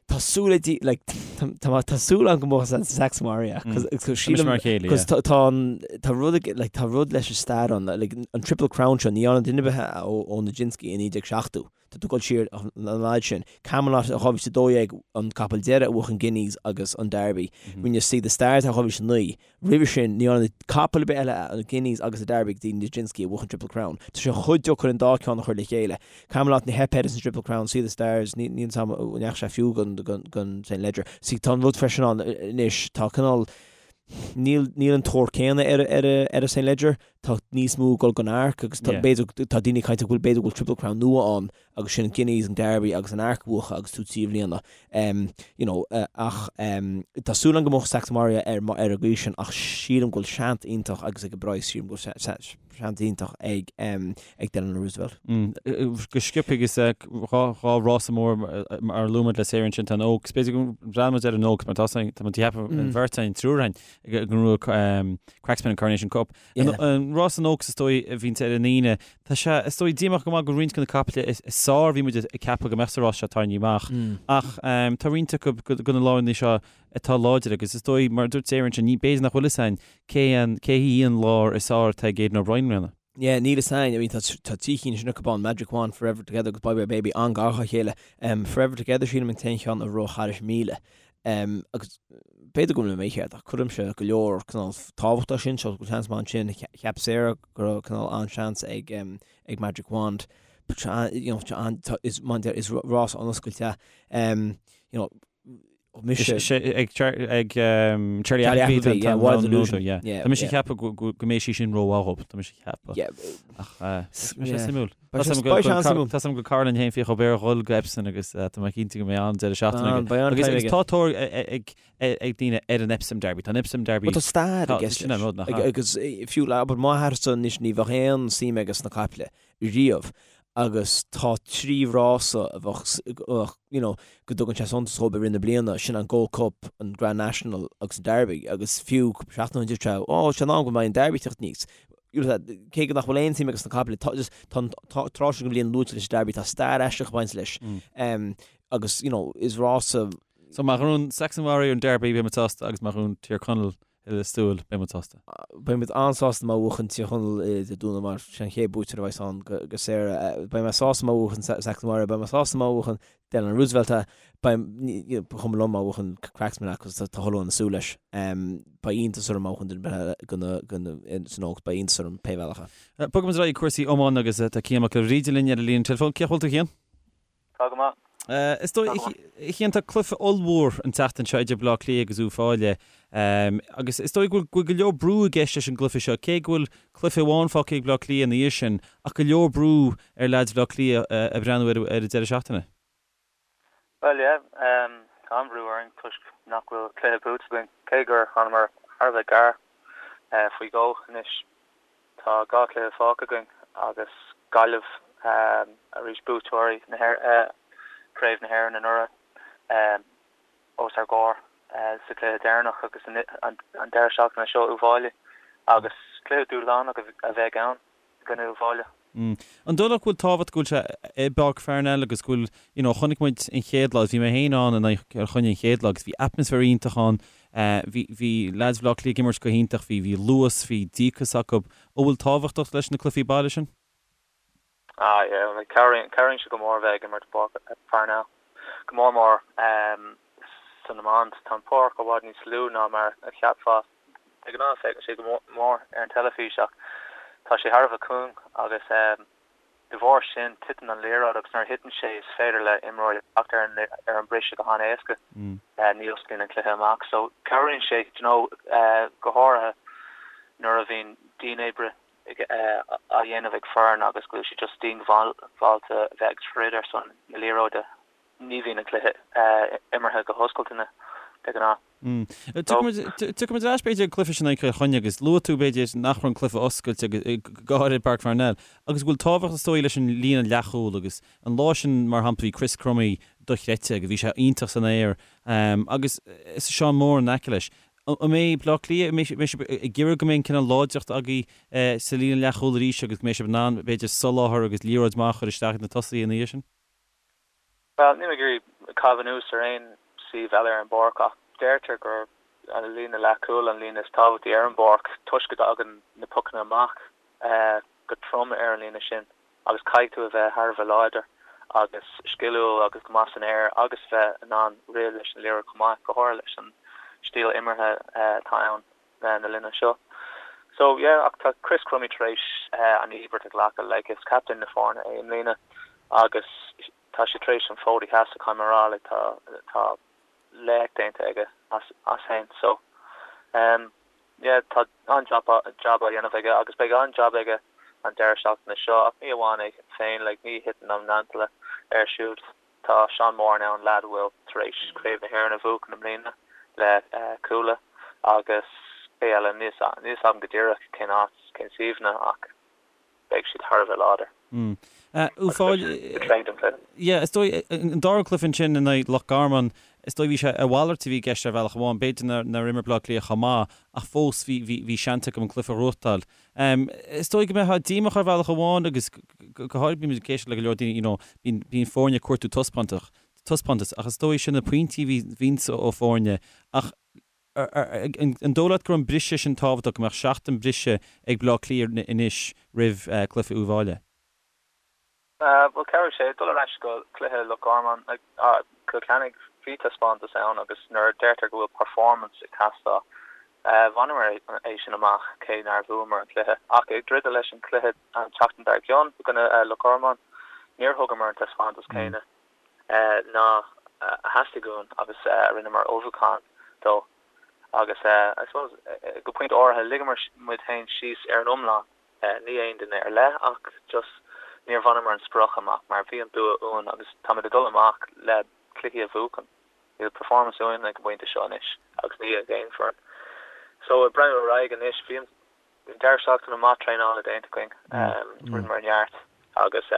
tá súil ag, like, tá, tá súil agam go mbuafaidh Saxon Warrior, cos, cos sílim, mar chéile, cos tá, tá an, tá rud, like, tá rud leis an stair ann, like, an Triple Crown seo, ní dhearna duine ar bith ó, ó Nijinsky i 1970. Tá tú ag dul siar an fhad sin. Camelot i 2012 an capall deiridh a bhuaigh an Guineas agus an Derby. Rinne Sea The Stars i 2009. Roimhe sin, ní dhearna capall ar bith eile an Guineas agus an Derby go dtí Nijinsky a bhuaigh an Triple Crown. Tá sé chomh deacair an dá ceann a chur le chéile. Camelot ní theip air san Triple Crown, Sea The Stars, níl a fhios agam an ndeachaigh sé fiú don St Leger. See, tá an rud freisin ann anois, tá cineál, níl níl an tóir céanna ar ar ar an St Leger. Tá níos mó ag dul don Arc agus tá b'fhéidir tá daoine ag caint go bhfuil b'fhéidir go bhfuil Triple Crown nua ann agus sin an Guineas, an Derby agus an Arc a bhuachan agus tú trí bhliana. Um, you know, uh, ach um, tá súil agam go mbuafaidh Saxon Warrior ar ar an gcaoi sin ach sílim go bhfuil seans iontach agus ag an bpraghas sílim go bhfuil seans iontach ag um, ag Delano Roosevelt. Mm, go sciobtha agus dhá rása mór mar a luaigh muid le Sarah ansin tá an Oaks. B'fhéidir go mbreathnóidh muid ar an Oaks mar tá tá muid ag ceapadh an bheirt againn triúr againn go ngnóthóidh Cracksman an Coronation Cup. An rás an Oaks is dóigh a bhíonn ar an Aoine. Tá sé is dóigh díomách go maith go roinnt de na caiple is fearr a bhí muid ag ceapadh go mbeadh sa rás seo tarraingthe amach. Ach tá roinnt acu de na lárannaí seo atá láidir agus is dóigh mar a dúirt Sarah ansin ní b'fhéidir nach bhfuil fhios againn cé an cé hí an lár is fearr atá ag Aidan O'Brien i mbliana. Yeah, níl fhios againn. I mean, tá tá trí chinn sin acu ann, Magic Wand, Forever Together agus Bye Bye Baby an-ghar dá chéile. Um, Forever Together sílim an t-aon cheann a rith thairis 1000. Um, agus b'fhéidir go bhfuil mé mícheart ach cuirimse go leor cineál tábhacht leis sin, so go bhfuil seans maith ansin. Cheap Sarah go raibh cineál an-seans ag, um, ag Magic Wand. But you know, tá, is, is rás an-oscailte. Um, you know, mise. Ag Charlie Appleby, yeah, Wild Illusion. Yeah. Tá mise ag ceapadh go mbeidh sí sin rómhaith dhób, tá mise ag ceapadh. Ach tá sé suimiúil. Tá a fhios agam go Caroline féin fiach ó Béar dhul go Epsom agus tá mé cinnte go mbeidh an-deireadh seachtaine aige. Agus tá tóir ag daoine ar an Epsom Derby. Tá an Epsom Derby. Tá stair i gceist leis. Agus fiú le m'athairsa anois ní bheadh aon suim aige sna caiple. riamh agus tá trí rása a bheadh, you know, go dtugann sé suntas dhóibh i rith na bliana, sin an Gold Cup, an Grand National agus an Derby agus fiú cúpla seachtain ó shin dúirt sé, oh, sé an am go mbeidh an Derby ag teacht aníos. You know, cé go nach bhfuil aon suim aige sna caiple, tá just, tá an tráth sin den bhliain luaite leis an Derby, tá stair aisteach ag baint leis. Um, agus, you know, is rása So má ghnóthaíonn Saxon Warrior an Derby, beidh muid sásta agus má ghnóthaíonn Tír Chonaill. Lios Tuathail, beidh muid sásta. Beidh muid an-sásta má bhuachann Tír Chonaill Dé Domhnaigh mar sin an chéad buaiteoir a bheas ann go Sarah. Beidh mé sásta má bhuachann Saxon Warrior, beidh mé sásta má bhuachann Delano Roosevelt é. Beidh, ba chuma liom má bhuachann Cracksman é cos tá chuile dhuine ag súil leis. Beidh iontas orm má bhuachann duine ar bith eile san Oaks, beidh iontas orm pé bhealach é. Bogfaidh muid ar aghaidh ag cúrsaí iomána agus tá Cian Mac Giolla Bhríde linn ar an líne teileafóin. Cén chaoi a bhfuil tú a Chian? Tá go maith. Is dóigh, a Chian, tá cluiche ollmhór an tseachtain seo idir Baile Átha Cliath agus Uíbh Fhailí agus is dóigh go bhfuil go leor brú i gceist leis an gcluiche seo, cé go bhfuil cluiche amháin fágtha ag Baile Átha Cliath ina dhiaidh sin, ach go leor brú ar leaids Bhaile Átha Cliath ag breathnú ar an deireadh seachtaine. Bhuel, yeah, tá an-bhrú orainn toisc nach bhfuil cluiche buaite againn, cé gur thánamar thar a bheith gar faoi dhó anois. Tá 2 chluiche fágtha againn agus Gaillimh arís, buaiteoirí Chraobh na hÉireann anuraidh, os ár gcomhair sa chluiche deireanach agus an deireadh seachtaine seo Uíbh Fhailí agus cluiche dúshlánach a bheidh ann i gcoinne Uíbh Fhailí. An dóigh leat go bhfuil tábhacht go bhfuil sé i bPáirc Pharnell agus go bhfuil, you know, chonaic muid an chéad lá, bhí mé féin ann in aghaidh Chill Chainnigh an chéad lá agus bhí atmaisféar iontach ann, bhí, bhí leaids Bhaile Átha Cliath ag imirt go hiontach, bhí, bhí luas, bhí díocas acu. An bhfuil tábhacht leis na cluichí baile sin? Ah yeah, like cabhraíonn, cabhraíonn sé go mór a bheith ag imirt i bPáirc Pharnell, go mór mór san iomáint. Tá an pháirc i bhfad níos lú ná mar a cheapfá. De ghnáth féachann sé go mór ar an teilifís ach tá sé thar a bheith cúng agus de bharr sin titeann an liathróid agus nuair a thiteann sé is féidir le imreoirí teacht ar an ar an briseadh go han-éasca. Ní osclaíonn an cluiche amach so cabhraíonn sé you know go háirithe nuair a bhíonn dianoibre á dhéanamh ag foireann agus go bhfuil siad just diongbháilte a bheith ag troid ar son na liathróide. Ní bhíonn an cluiche imeartha go hoscailte de ghnáth. Tiocfaidh muid ar ais b'fhéidir ag an cluiche sin in aghaidh Chill Chainnigh agus luaigh tú b'fhéidir nach raibh an cluiche oscailte go háirithe i bPáirc Pharnell agus go bhfuil tábhacht is dóigh leis an líne leathchúil agus an lá sin mar shampla bhí Chris Crummey dochreidte agus bhí sé iontach san aer agus Seán Moran in aice leis. An mbeidh Baile Átha Cliath, an mbeidh sibh ag iarraidh go mbeidh an cineál láidreacht agaibh sa líne leathchúil arís agus go mbeidh sibh in ann b'fhéidir soláthar agus liathróid maith a chur isteach ag na tosaithe ina dhiaidh sin? Bhuel, níl mé ag iarraidh caitheamh anuas ar aon suíomh eile ar an bpáirc ach deirtear gur an líne leathchúil an líne is tábhachtaí ar an bpáirc toisc go dtagann na pocanna amach go trom ar an líne sin agus caithfidh tú a bheith thar a bheith láidir agus sciliúil agus go maith san aer agus bheith in ann rith leis an liathróid chomh maith, go háirithe leis an stíl imeartha atá ann. na linne seo. So yeah, ach tá Chris Crummey tar éis an íobairt a ghlacadh, like is captaen na foirne é i mbliana agus tá sé tar éis an fód a sheasamh, caithfidh mé a rá, like tá tá laoch déanta aige as as féin. So um yeah, tá an-jab jab á dhéanamh aige agus beidh an-jab aige an deireadh seachtaine seo ach ní amháin é féin, like ní thiteann an mantle air siúd. Tá Seán Moran ann, leaid a bhfuil tar éis Craobh na hÉireann a bhuachan i mbliana le Cuala agus cé eile, níl a fhios agam go díreach cén áit, cén suíomhanna ach beidh siad thar a bheith láidir. Agus beidh siad go tréan don chluiche. Yeah, is dóigh, an dara cluiche ansin in aghaidh Loch Garman, is dóigh bhí sé a mhalairt a bhí i gceist ar bhealach amháin, b'fhéidir nár imir Baile Átha Cliath chomh maith ach fós bhí, bhí, bhí seans acu an cluiche a ghnóthachtáil. Is dóigh go mbeifeá díomách ar bhealach amháin agus go háirithe bímid ag éisteacht le go leor daoine, you know, bíonn, bíonn foirne ag cuartú taispeántach, taispeántas ach is dóigh sin na pointí a bhí, bhíonns ó foirne ach an dóigh leat go raibh an briseadh sin tábhachtach, go mbeadh seachtain briseadh ag Baile Átha Cliath anois roimh cluiche Uíbh Fhailí? Bhuel, cabhróidh sé dul ar ais go cluiche Loch Garman, Cill Chainnigh, bhí taispeántas ann agus nuair a deirtear go bhfuil performance ag teastáil, bhaineamar é sin amach cé nár bhuamar an cluiche. Ach ag druidim leis an cluiche an tseachtain dár gcionn i gcoinne Loch Garman, níor thugamar an taispeántas céanna ná a theastaigh uainn agus a rinneamar ullmhúchán dó. Agus I suppose go pointe áirithe ligeamar muid féin síos ar an iomlán. Ní aon duine ar leith ach just níor bhaineamar an sprioc amach mar bhí an bua uainn agus táimid ag dul amach le cluichí a bhuachan. Níl performance uainn ag an bpointe seo anois agus ní ag aon foireann. So ag breathnú ar aghaidh anois, bhí an deireadh seachtaine maith traenála déanta againn, rinneamar neart agus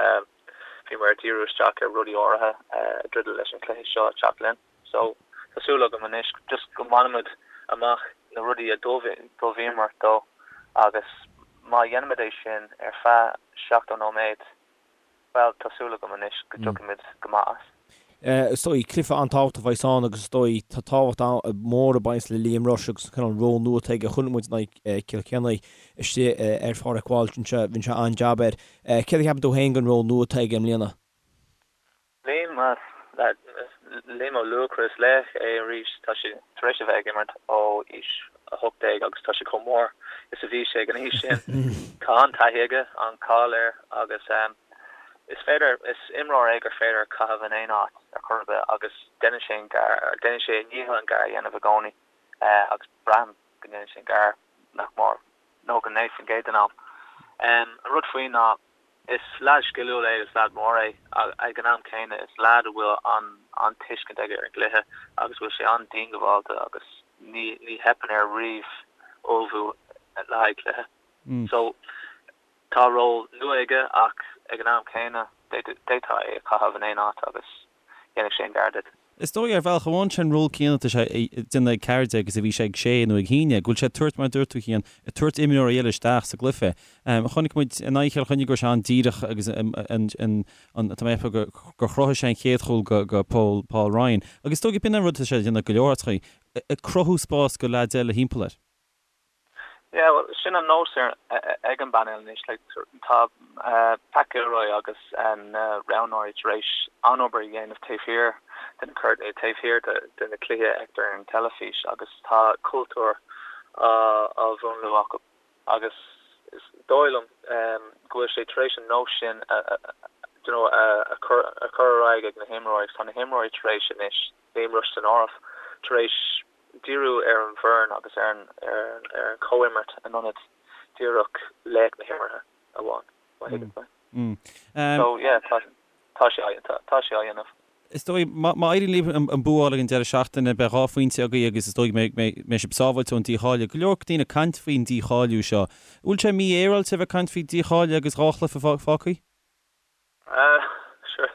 bhíomar ag díriú isteach ar rudaí áirithe ag druidim leis an cluiche seo ag teacht linn. So, tá súil agam anois just go mbainfimid amach na rudaí a d'ullmhaíomar dó agus má dhéanaimid é sin ar feadh 70 nóiméad, bhuel, tá súil agam anois go dtiocfaimid go maith as. Is dóigh, cluiche an-tábhachtach a bheas ann agus is dóigh tá tábhacht mór ag baint le Liam Rushe agus an cineál ról nua atá aige. Chonaic muid in aghaidh Cill Chainnigh istigh ar Pháirc Walsh anseo, rinne sé an-jab air. Céard a cheapann tú féin den ról nua atá aige i mbliana? Liam, Liam Ó Luachra, is laoch é arís. Tá sé tar éis a bheith ag imirt ó aois 18 agus tá sé chomh mór is a bhí sé ag an aois sin. Tá an-taithí aige, an-cháil air agus is féidir, is imreoir é gur féidir caitheamh in aon áit ar chor ar bith agus déanann sé an gar, déanann sé a dhícheall an gar a dhéanamh i gcónaí agus braithim go ndéanann sé an gar nach mór 99% den am. An rud faoi ná Is leaid sciliúil é agus leaid mór é. Ag an am céanna, is leaid a bhfuil an-tuiscint aige ar an gcluiche agus bhfuil sé an-diongbháilte agus ní theipeann air riamh ullmhú le haghaidh cluiche. So, tá ról nua aige ach ag an am céanna, d'fhéadfá é a chaitheamh in aon áit agus dhéanfadh sé an gar duit. Is dóigh, ar bhealach amháin, sé an ról céanna atá sé ag déanamh ag 14 agus a bhí sé ag sé nó ag haon déag, go bhfuil sé ag tabhairt, mar a dúirt tú, Cian, ag tabhairt imreoirí eile isteach sa gcluiche. Chonaic muid in aghaidh Chill Chainnigh go raibh sé an-díreach agus an, an, tá mé ag ceapadh gur chruthaigh sé an chéad chúl go, go Paul, Paul Ryan. Agus is dóigh, b'in an rud atá sé ag déanamh go leor áiteachaí, ag cruthú spás go leaids eile thimpeall air. Yeah, well, sin an nós ar, ag an bpainéal anois. Like, tá Pat Gilroy agus na roghnóirí tar éis an-obair a dhéanamh taobh thiar de na cuirtíní, taobh thiar de, de na cluichí a fheictear ar an teilifís agus tá cultúr á, á mhúnlú acu agus is dóigh liom go bhfuil sé tar éis an nós sin a, a, you know, a, a chur, a chur ar aghaidh ag na himreoirí agus tá na himreoirí tar éis anois, Liam Rushe san áireamh, tar éis díriú ar an bhfoireann agus ar an ar an chomhimirt in ionad díreach laoch na himeartha amháin, má thuigeann tú mé. So yeah, tá tá sé á tá sé á dhéanamh. Is dóigh, má éiríonn libh an bua a fháil ag an deireadh seachtaine, beidh 2 phointe agaibh agus is dóigh go mbeidh sibh sábháilte ón dícháiliú. Go leor daoine ag caint faoin dícháiliú seo. An bhfuil sé mífhéaráilte a bheith ag caint faoi dícháiliú agus 2 chluiche fágtha? Sure.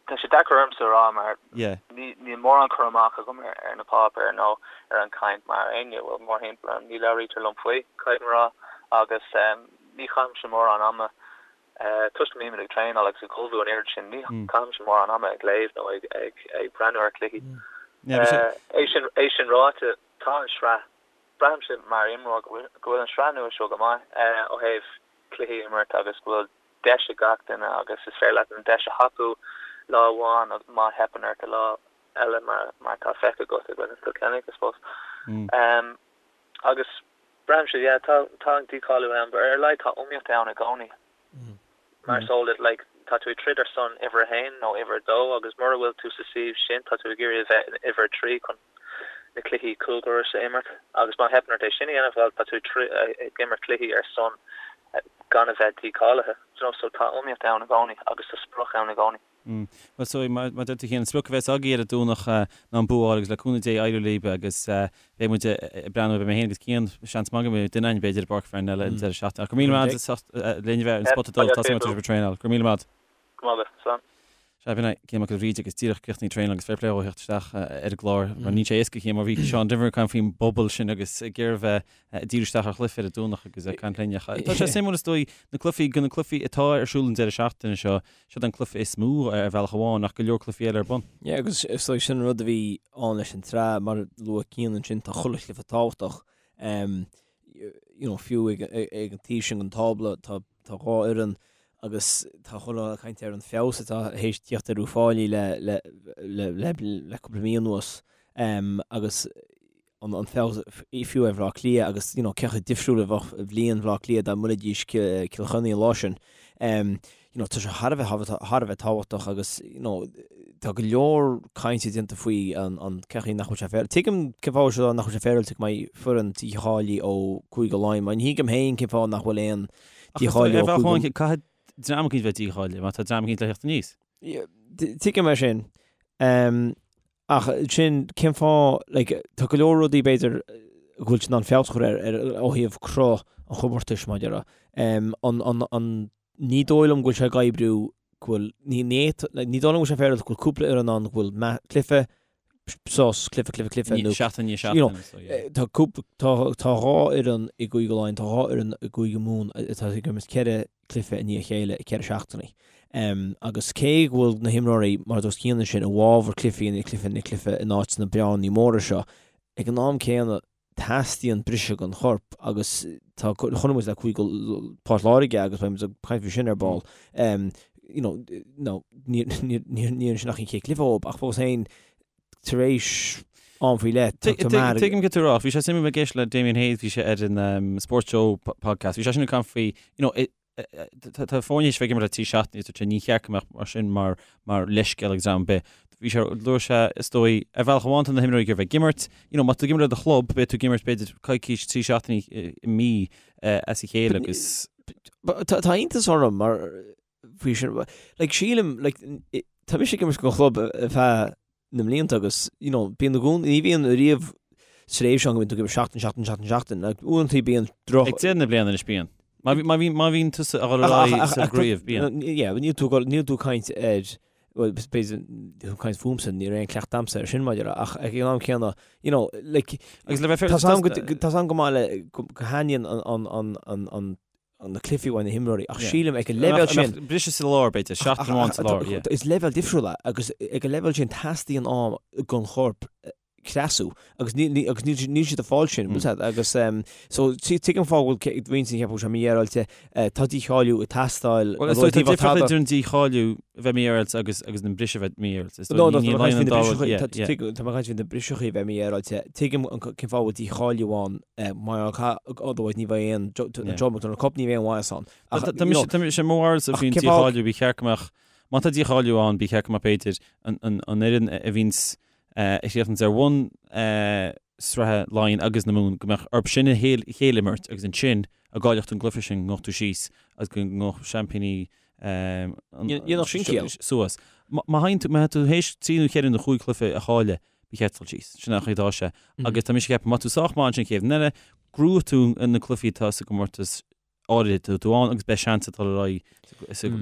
Tá sé deacair ormsa a rá mar níl mórán cur amach agam ar na páipéir nó ar an chaint mar éinne a bhfuil mórthimpeall orm. Ní labhraítear liom faoi, caithfidh mé a rá, agus ní chaithimse mórán ama, toisc go mbímid ag traenáil agus ag ullmhú an oiread sin, ní chaithimse mórán ama ag léamh nó ag breathnú ar chluichí. É sin ráite, tá an sraith, braithimse mar imreoir go bhfuil an sraith nua seo go maith ó thaobh cluichí a imirt agus go bhfuil deis ag gach duine agus is féidir leat an deis a thapú lá amháin agus má theipeann ort an lá eile mar mar atá feicthe agat i gcoinne Chill Chainnigh I suppose. Um, agus braithimse yeah, tá tá an dícháiliú ann, but ar a laghad tá iomaíocht ann i gcónaí. Mm. Mar is eol duit like, tá tú ag troid ar son uimhir a haon nó uimhir a dó agus mura bhfuil tú sa suíomh sin tá tú ag iarraidh a bheith in uimhir a 3 chun na cluichí cúldorais a imirt agus má theipeann ort é sin a dhéanamh, bhuel, tá tú ag imirt cluichí ar son gan a bheith dícháilithe. Do you know, so tá iomaíocht ann i gcónaí agus tá sprioc ann i gcónaí. Bhuel, so mar a deir tú Cian, an sprioc a bheas agaibh ar an Domhnach ná an bua a fháil agus le cúnamh Dé éireoidh libh agus beidh muid ag breathnú, beidh mé féin agus Cian, seans maith go mbeidh duine againn b'fhéidir i bPáirc Pharnell an deireadh seachtaine. Ach go raibh míle maith agat as ucht linn a bheith ar an Spota Dubh, tá súil agam go raibh sibh ag traenáil. Go raibh míle maith agat. Go maith agat, slán. Sea, b'in é Cian Mac Giolla Bhríde agus díreach críochnaithe traenáil agus fair play dhó a theacht isteach ar an gclár mar níl sé éasca Cian mar bhí Seán Denvir ag caint faoin bpobal sin agus ag iarraidh a bheith ag díriú isteach ar chluiche ar an Domhnach agus ag caint linn. Tá sé suimiúil is dóigh na cluichí, de na cluichí atá ar siúl an deireadh seachtaine seo, siod an cluiche is mó ar bhealach amháin ach go leor cluichí eile ar bun. Yeah agus is dóigh sin an rud a bhí ann leis an tsraith mar a luaigh Cian ansin tá chuile chluiche tábhachtach. You know fiú ag ag an taobh sin den tábla tá tá dhá fhoireann agus tá chuile dhuine ag caint ar an feabhas atá théis tíocht ar Uíbh Fhailí le le le le le cúpla mí anuas agus an an feabhas fiú ar Bhaile Átha Cliath agus you know cé chomh difriúil a bheadh bliain Bhaile Átha Cliath dá mbuailfidís Cill Chainnigh an lá sin. You know tá sé thar a bheith thar a bheith tábhachtach agus you know tá go leor cainte déanta faoi an an cén chaoi nach bhfuil sé féaráilte. Tuigim cén fáth seo nach bhfuil sé féaráilte go mbeidh foireann dícháilithe ó Cúige Laighean, mar ní thuigim féin cén fáth nach bhfuil aon dícháiliú ó Chúige Caithfidh dream eicínt bheith dícháilithe má tá dream eicínt le theacht aníos. Tuigim é sin. Ach sin cén fáth like tá go leor rudaí b'fhéidir go bhfuil siad in ann feabhas a chur ar ar ó thaobh cruth an chomórtais mar a déarfá. An an an ní dóigh liom go bhfuil sé ag oibriú go bhfuil ní ní ní dóigh liom go bhfuil sé féaráilte go bhfuil cúpla fhoireann ann go bhfuil cluiche sos cluiche cluiche cluiche nó seachtain i ndiaidh you know, seachtaine so yeah. Tá cúpla tá tá dhá fhoireann i gCúige Laighean tá dhá fhoireann i gCúige Mumhan atá ag imirt ceithre cluiche i ndiaidh a chéile i ceithre seachtainí. Agus cé go bhfuil na himreoirí, mar a dúirt Cian ansin, i bhfabhar cluichí i ndiaidh cluiche i ndiaidh cluiche in áit na bearnaí móra seo, ag an am céanna teastaíonn briseadh don chorp agus tá, chonaic muid le Cúige Port Láirge agus beidh muid ag caint faoi sin ar ball, you know, no, ní níor sin ach an chéad chluiche dóibh ach fós féin tar éis am faoi leith, tá tú mear. Tuigim cad tá tú a rá. Bhí sé suimiúil ag éisteacht le Damien Hayes, bhí sé ar an Sports Show podcast, bhí sé sin ag caint faoi, you know, Tá foirne tar éis bheith ag imirt le 3 seachtainí is dúirt sé ní cheart go mbeadh mar sin mar mar leithscéal ag dream ar bith. Bhí sé, dúirt sé, is dóigh, ar bhealach amháin tá na himreoirí ag iarraidh bheith ag imirt, you know, má tá tú ag imirt le do chlub, beidh tú ag imirt b'fhéidir coicís, 3 seachtainí i mí as a chéile agus. Tá iontas orm mar faoi sin, like sílim, like tá mise ag imirt don chlub ar feadh na mblianta agus, you know, bíonn i gcónaí, ní bhíonn riamh tréimhse ann go mbíonn tú ag imirt seachtain, seachtain, seachtain, seachtain. Like, uaireanta bíonn droch... Ag deireadh na bliana anois bíonn. Má bhí, má bhí, má bhíonn tusa ag dul ar aghaidh sa gcraobh, bíonn. Yeah, níl tú, níl tú ag caint ar, well, b'fhéidir, tú ag caint fúmsa, ní raibh aon cleachtadh a'msa ar sin maidir le, ach ag an am céanna, you know, like, Agus le bheith tá 's a'm go, tá 's a'm go maith le, go thaitníonn an, an, an, an, an, na cluichí uaidh na himreoirí ach sílim ag an leibhéal sin. Briseadh sa lár b'fhéidir, seachtain amháin sa lár, yeah. Is leibhéal difriúil é agus ag an leibhéal sin teastaíonn am don chorp creasú agus níl agus níl níl siad ag fáil sin, bhfuil a fhios a'd agus so tuigim fáth go bhfuil roinnt ag ceapadh go bhfuil sé mífhéaráilte, tá dícháiliú ag teastáil. Bhuel is dóigh tá difríocht idir an dícháiliú a bheith mífhéaráilte agus agus an briseadh a bheith mífhéaráilte. Is dóigh ní ní an dá rud, yeah, yeah. Tá mé ag caint faoi na briseachaí a bheith mífhéaráilte. Tuigim cén fáth a bhfuil dícháiliú ann Mar otherwise ní bheidh aon Joe McDonagh Cup, ní bheidh aon mhaitheas ann. Ach tá mise tá mise mo bharúilsa faoin dícháiliú, ba cheart go mbeadh, má tá dícháiliú ann, ba cheart go mbeadh b'fhéidir an fhoireann a bhíonns a chríochnaíonns ar bhun sraithe Laighean agus na Mumhan, go mbeadh orthu sin a chéile imirt agus ansin dá gcaillfeadh tú an gcluiche sin go ngabhfadh tú síos agus go ngabhfadh seaimpíní Dhéanfadh sin ciall. suas. Má théann tú, má tá tú théis trí nó cheithre nó chúig chluiche a chailleadh, ba cheart dul síos. Sin an chaoi atá sé. Agus tá mise ag ceapadh, má tá tú sách maith ansin chéad bhliain eile, gnóthóidh tú na cluichí atá sa gcomórtas áirithe atá tú ann agus beidh seans ag dul ar aghaidh.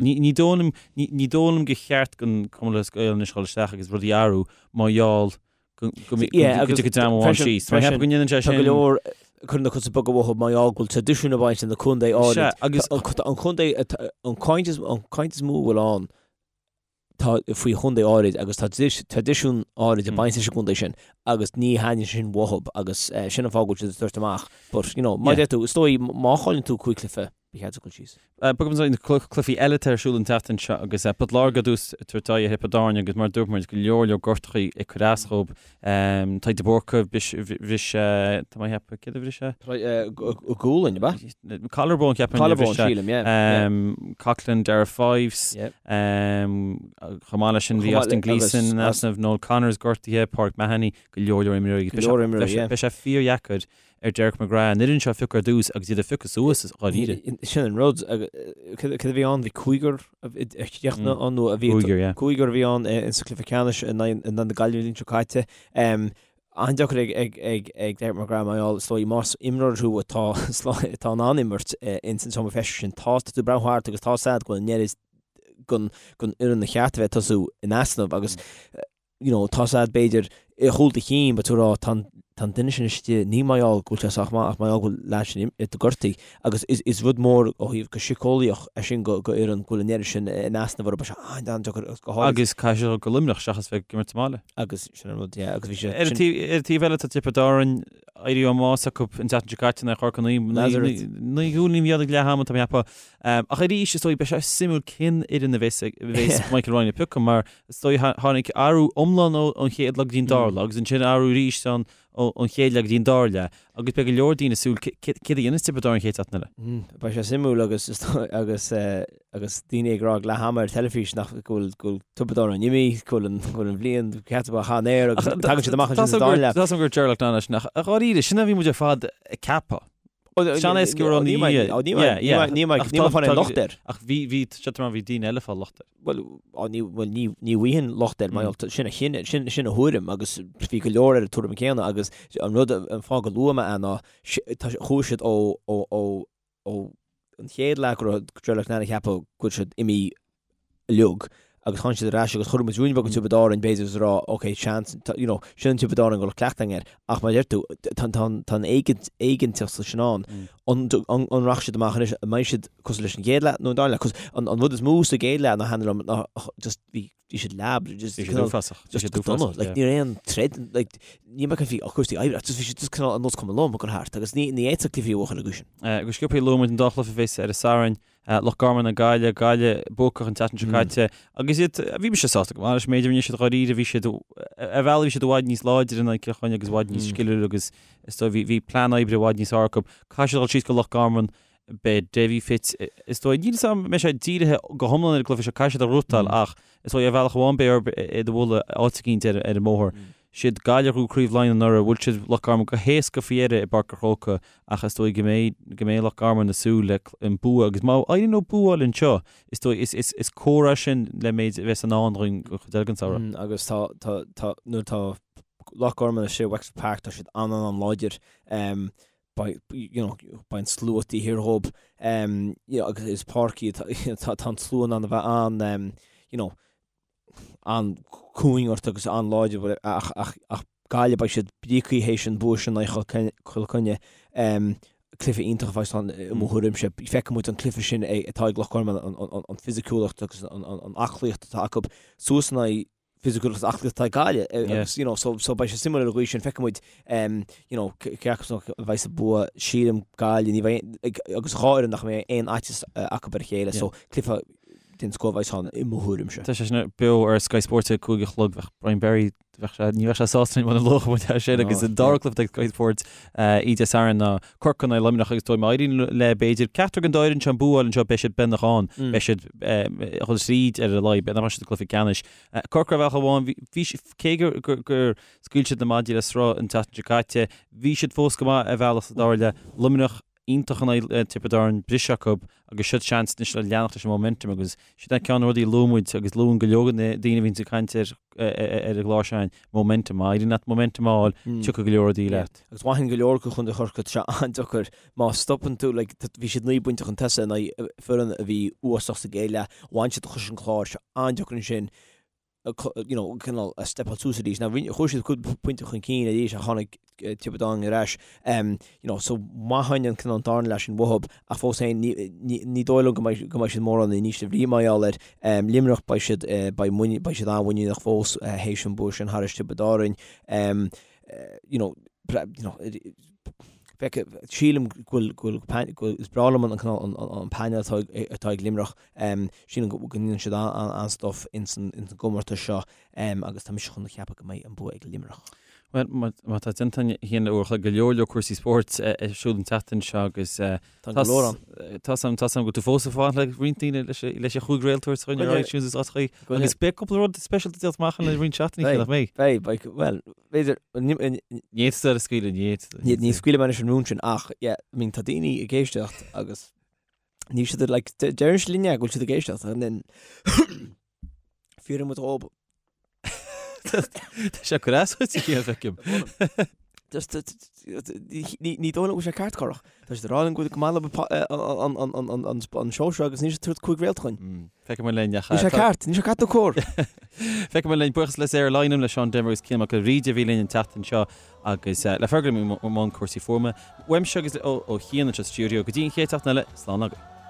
Ní dóigh liom, ní dóigh liom gur cheart don Chumann Lúthchleas Gael anois dul isteach agus rudaí a athrú mar gheall go dtiocfaidh dream amháin síos. Tá mé ag ceapadh go ndéanann sé sin. Tá go leor cuireann na cosa beaga uathu mar gheall go bhfuil traidisiún ag baint le na contae áirid. Agus an contae, an caint is mó a bhfuil ann tá faoi chontae áirid agus tá traidisiún áirid ag baint leis an gcontae sin agus ní thaitníonn sin uathu agus sin an fáth go bhfuil siad ag tabhairt amach. But, you know, mar a deir tú, is dóigh má chailleann tú 5 cluiche, ba cheart duit dul síos. Bogfaidh muid ar na cluichí eile atá ar siúl an tseachtain seo agus Port Láirge ar dtús ag tabhairt aghaidh ar Thiobraid Árann agus mar a dúirt muid, go leor leor gortachaí ag cur as dhóibh. Tadhg de Búrca, bhris sé, tá mé ag ceapadh, céard a bhris sé? Gualainn, ab ea? Collarbone, ceapaim. Collarbone, sílim, yeah. Coughlan, Darragh Fives, chomh maith leis sin bhí Austin Gleeson in easnamh, Noel Connors gortaithe, Pauric Mahony, go leor leor imreoirí. Go leor imreoirí, yeah. Beidh sé fíordheacair ar Derek McGrath an fhoireann seo a phiocadh ar dtús agus iad a phiocadh suas dháiríre. Sin an rud. Cad a bhí ann? Bhí cúigear a chríochnaigh ann nó a bhí Cúigear, yeah. Cúigear a bhí ann in sa cluiche ceannais in aghaidh na Gaillimhe an bhliain seo caite. An-deacair ag Derek McGrath mar gheall, is dóigh, más imreoir thú atá atá in ann imirt ins an seomra feistis sin, tá tú ag breathnú thart agus tá a fhios agat go bhfuil an oiread den fhoireann a cheart a bheith ag tosú in easnamh agus you know, tá a fhios agat b'fhéidir i gcúl do chinn beidh tú ag rá tá an tá an duine sin istigh ní mar gheall go bhfuil sé sách maith ach mar gheall go bhfuil leaid sin gortaithe agus is is rud mór ó thaobh go síceolaíoch é sin go go fhoireann go bhfuil an oiread sin in easnamh orthu beidh sé an-deacair agus go háirid Agus caithfidh siad dul go Luimneach seachas bheith ag imirt sa mbaile. Agus sin an rud, yeah, agus bhí sé Ar an taobh ar an taobh eile tá Tiobraid Árann éirí ó mbás acu an tseachtain seo caite in aghaidh Chorca Nazareth. 9 gcúilín a bhí ann ag leath ama tá mé ag ceapadh. Ach arís is dóigh beidh sé suimiúil cén fhoireann a bheas a bheas Michael Ryan ag piocadh mar Is dóigh tháinig athrú iomlán ón chéad lá go dtí an dara lá agus ansin athrú arís ón chéad leath go dtí an dara leath agus beidh go leor daoine ag súil céard a dhéanfas Tiobraid Árann an chéad seachtain eile. Beidh sé suimiúil agus agus agus daoine ag rá ag leath ama ar teilifís nach go bhfuil go bhfuil Tiobraid Árann imithe, go bhfuil an go bhfuil an bhliain ceart acu thar an aer agus tagann siad amach ansin sa dara leath. Tá 's agam gur Ger Loughnane leis ach dháiríre, sin a bhí muid ar fad ag ceapadh. Sean éasca go raibh ní ní ní fáil aon locht air. Ach bhí bhí sé bhí daoine eile ag fáil locht air. Bhuel ní bhuel ní ní bhfaighinn locht air mar sin a chinneadh sin sin a thuairim agus bhí go leor ar an tuairim céanna agus an rud an fáth go luaigh mé é ná tá chuaigh siad ó ó ó ó an chéad leath go raibh Ger Loughnane ag ceapadh go bhfuil siad imithe uilig. agus tháinig siad ar ais agus chuir muid ruainne beag ar Tiobraid Árann b'fhéidir is a rá ok seans you know sin an Tiobraid Árann go bhfuil cleachtadh againn air ach mar a deir tú tá tá tá an éiginnteacht sin ann an an an rachaidh siad amach anois an mbeidh siad cosúil leis an gcéad leath nó an dara leath cos an an rud is mó sa gcéad leath ná thaitnigh liom ná just bhí bhí siad leab just Bhí siad uafásach. Bhí just siad go dona uafásach, like yeah. ní raibh aon troid like ní mbeadh bhí cúrsaí oibre ach just bhí siad just cineál ar nós cuma liom ag dul thart agus ní ní fhéadfadh cluichí a bhuachan an gcaoi sin. Go sciobtha luaigh muid an dá chluiche a bheas ar an Satharn, Loch Garman ag Gaillimh, Gaillimh buacach an tseachtain seo caite agus iad, bhí mise sásta go maith leis an méid a rinne siad dháiríre, bhí siad, ar bhealach bhí siad i bhfad níos láidre in aghaidh Cill Chainnigh agus i bhfad níos sciliúla agus is dóigh bhí, bhí plean oibre i bhfad níos fearr acu. Caithfidh siad dul síos go Loch Garman, beidh Davy fit, is dóigh, níl 'fhios a'm an mbeidh sé dírithe go hiomlán ar an gcluiche seo, caithfidh siad a ghnóthachtáil ach is dóigh ar bhealach amháin beidh orthu iad a bhualadh áit eicínt ar an mbóthar. Siad Gaillimh a ghnóthaigh Craobh Laighean anuraidh, bhuail siad Loch Garman go héasca faoi dheireadh i bPáirc an Chrócaigh ach is dóigh go mbeidh go mbeidh Loch Garman ag súil le an bua agus má éiríonn leo bua a fháil anseo is dóigh is is is comhartha é sin le méid a bheas i ndán dhúinn don chuid eile den samhradh. Agus tá tá tá nuair atá Loch Garman istigh i Wexford Park tá siad an an an láidir. Beidh you know beidh an slua taobh thiar dhób you know agus is páirc í tá tá an slua in ann a bheith an you know an-cúing ort agus an-láidir ach ach Gaillimh beidh siad bríoctha théis an bua sin in aghaidh Chill Chainnigh. Cluiche iontach a bheas ann i mo thuairimse. Feicfidh muid an cluiche sin atá ag Loch Garman, an fisiciúlacht agus an aclaíocht atá acu suas in aghaidh fisiciúlacht agus aclaíocht atá ag Gaillimh agus you know so so beidh sé suimiúil ar an gcaoi sin. Feicfidh muid you know cé acu a bheidh sa bua. Sílim Gaillimh ní bheidh agus an dá fhoireann nach mbeidh aon fhaitíos acu ar a chéile so cluiche den scoth a bheas ann i mo thuairimse. Tá sé sin beo ar Sky Sports ag 5 a chlog. Bheadh Brian Barry, bheadh sé, ní bheadh sé sásta muna luafadh muid é sin agus an dara cluiche ag Sky Sports oíche Dé Sathairn ná Corcaigh in aghaidh Luimneach agus dóigh má éiríonn le b'fhéidir ceachtar den dá fhoireann seo an bua a fháil anseo beidh siad beagnach ann, beidh siad ag dul tríd ar a laghad, beidh nach mbeidh siad i gcluiche ceannais. Corcaigh ar bhealach amháin, bhí, cé gur, gur scaoil siad na maidí le sruth an tseachtain seo caite, bhí siad fós go maith ar bhealach sa dara leath. Luimneach, iontach in aghaidh Tiobraid Árann, briseadh acu agus siod seans anois le leanacht leis an momentum agus sin é ceann de na rudaí a luaigh muid agus luann go leor de na daoine a bhíonns ag caint ar ar an gclár seo, momentum. Má éiríonn leat momentum a fháil, tiocfaidh go leor rudaí leat. Agus mhaithfinn go leor acu Chontae Chorcaí, tá sé an-deacair má stopann tú, like, bhí siad 9 bpointe chun tosaigh in aghaidh foireann a bhí uafásach sa gcéad leath, bhain siad cois an Chláir, tá sé an-deacair ansin you know, cineál a stepáil suas arís. Now, chuaigh siad cúpla pointe chun cinn arís ach tháinig Tiobraid Árann ar ais. Um, you know, so mhaithfinn an cineál an darna leath sin uathub ach fós féin ní, ní, ní dóigh liom go mbeidh, go mbeidh siad mórán in ísle brí mar gheall air. Um, Luimneach beidh siad, uh, beidh muinín, beidh siad an-mhuiníneach fós uh, théis an bua sin thairis Tiobraid Árann. Um, uh, you know, you know, Feice, sílim go bhfuil, go bhfuil, go bhfuil, is breá liom an cineál, an, an, an painéal atá ag, atá ag Luimneach. Sílim go ndéanann siad an-stuif ins an gcomórtas seo agus tá mise chun a cheapadh go mbeidh an bua ag Luimneach. Bhuel, má tá déanta againn le uair a chloig, go leor leor cúrsaí spóirt ar siúl an tseachtain seo agus tá go leor ann. Tá 's agam go bhfuil tú fós ag fanacht le roinnt daoine leis an chúig réalt a thabhairt chugainn ar iTunes is áiteachaí agus beidh cúpla rud speisialta déanta amach le roinnt seachtainí, nach mbeidh? Beidh, beidh, bhuel, b'fhéidir, Ní fhéadfadh tú a scaoileadh, ní fhéadfadh. Ní scaoilfidh mé anois an rún sin ach, yeah, I mean, tá daoine ag éisteacht agus Níl siad like, deireann siad linne go bhfuil siad ag éisteacht and then fiafraíonn muid dhób. Tá sé cur as chuid a feicim. Just ní dóigh liom go bhfuil sé ceart corrach. Tá siad ag rá linn go bhfuil go maith leo an seó seo agus níl siad ag tabhairt 5 réalt chugainn. Feicfidh muid linn. Níl sé ceart, níl sé ceart nó cóir. Feicfidh muid linn. Buíochas le Sarah Lynam, le Seán Denvir agus Cian Mac Giolla Bhríde a bhí linn an tseachtain seo agus le Fergal i mbun cúrsaí fuaime. Uaimse agus ó Chian anseo sa stiúideo go dtí an chéad tseachtain eile, slán agaibh.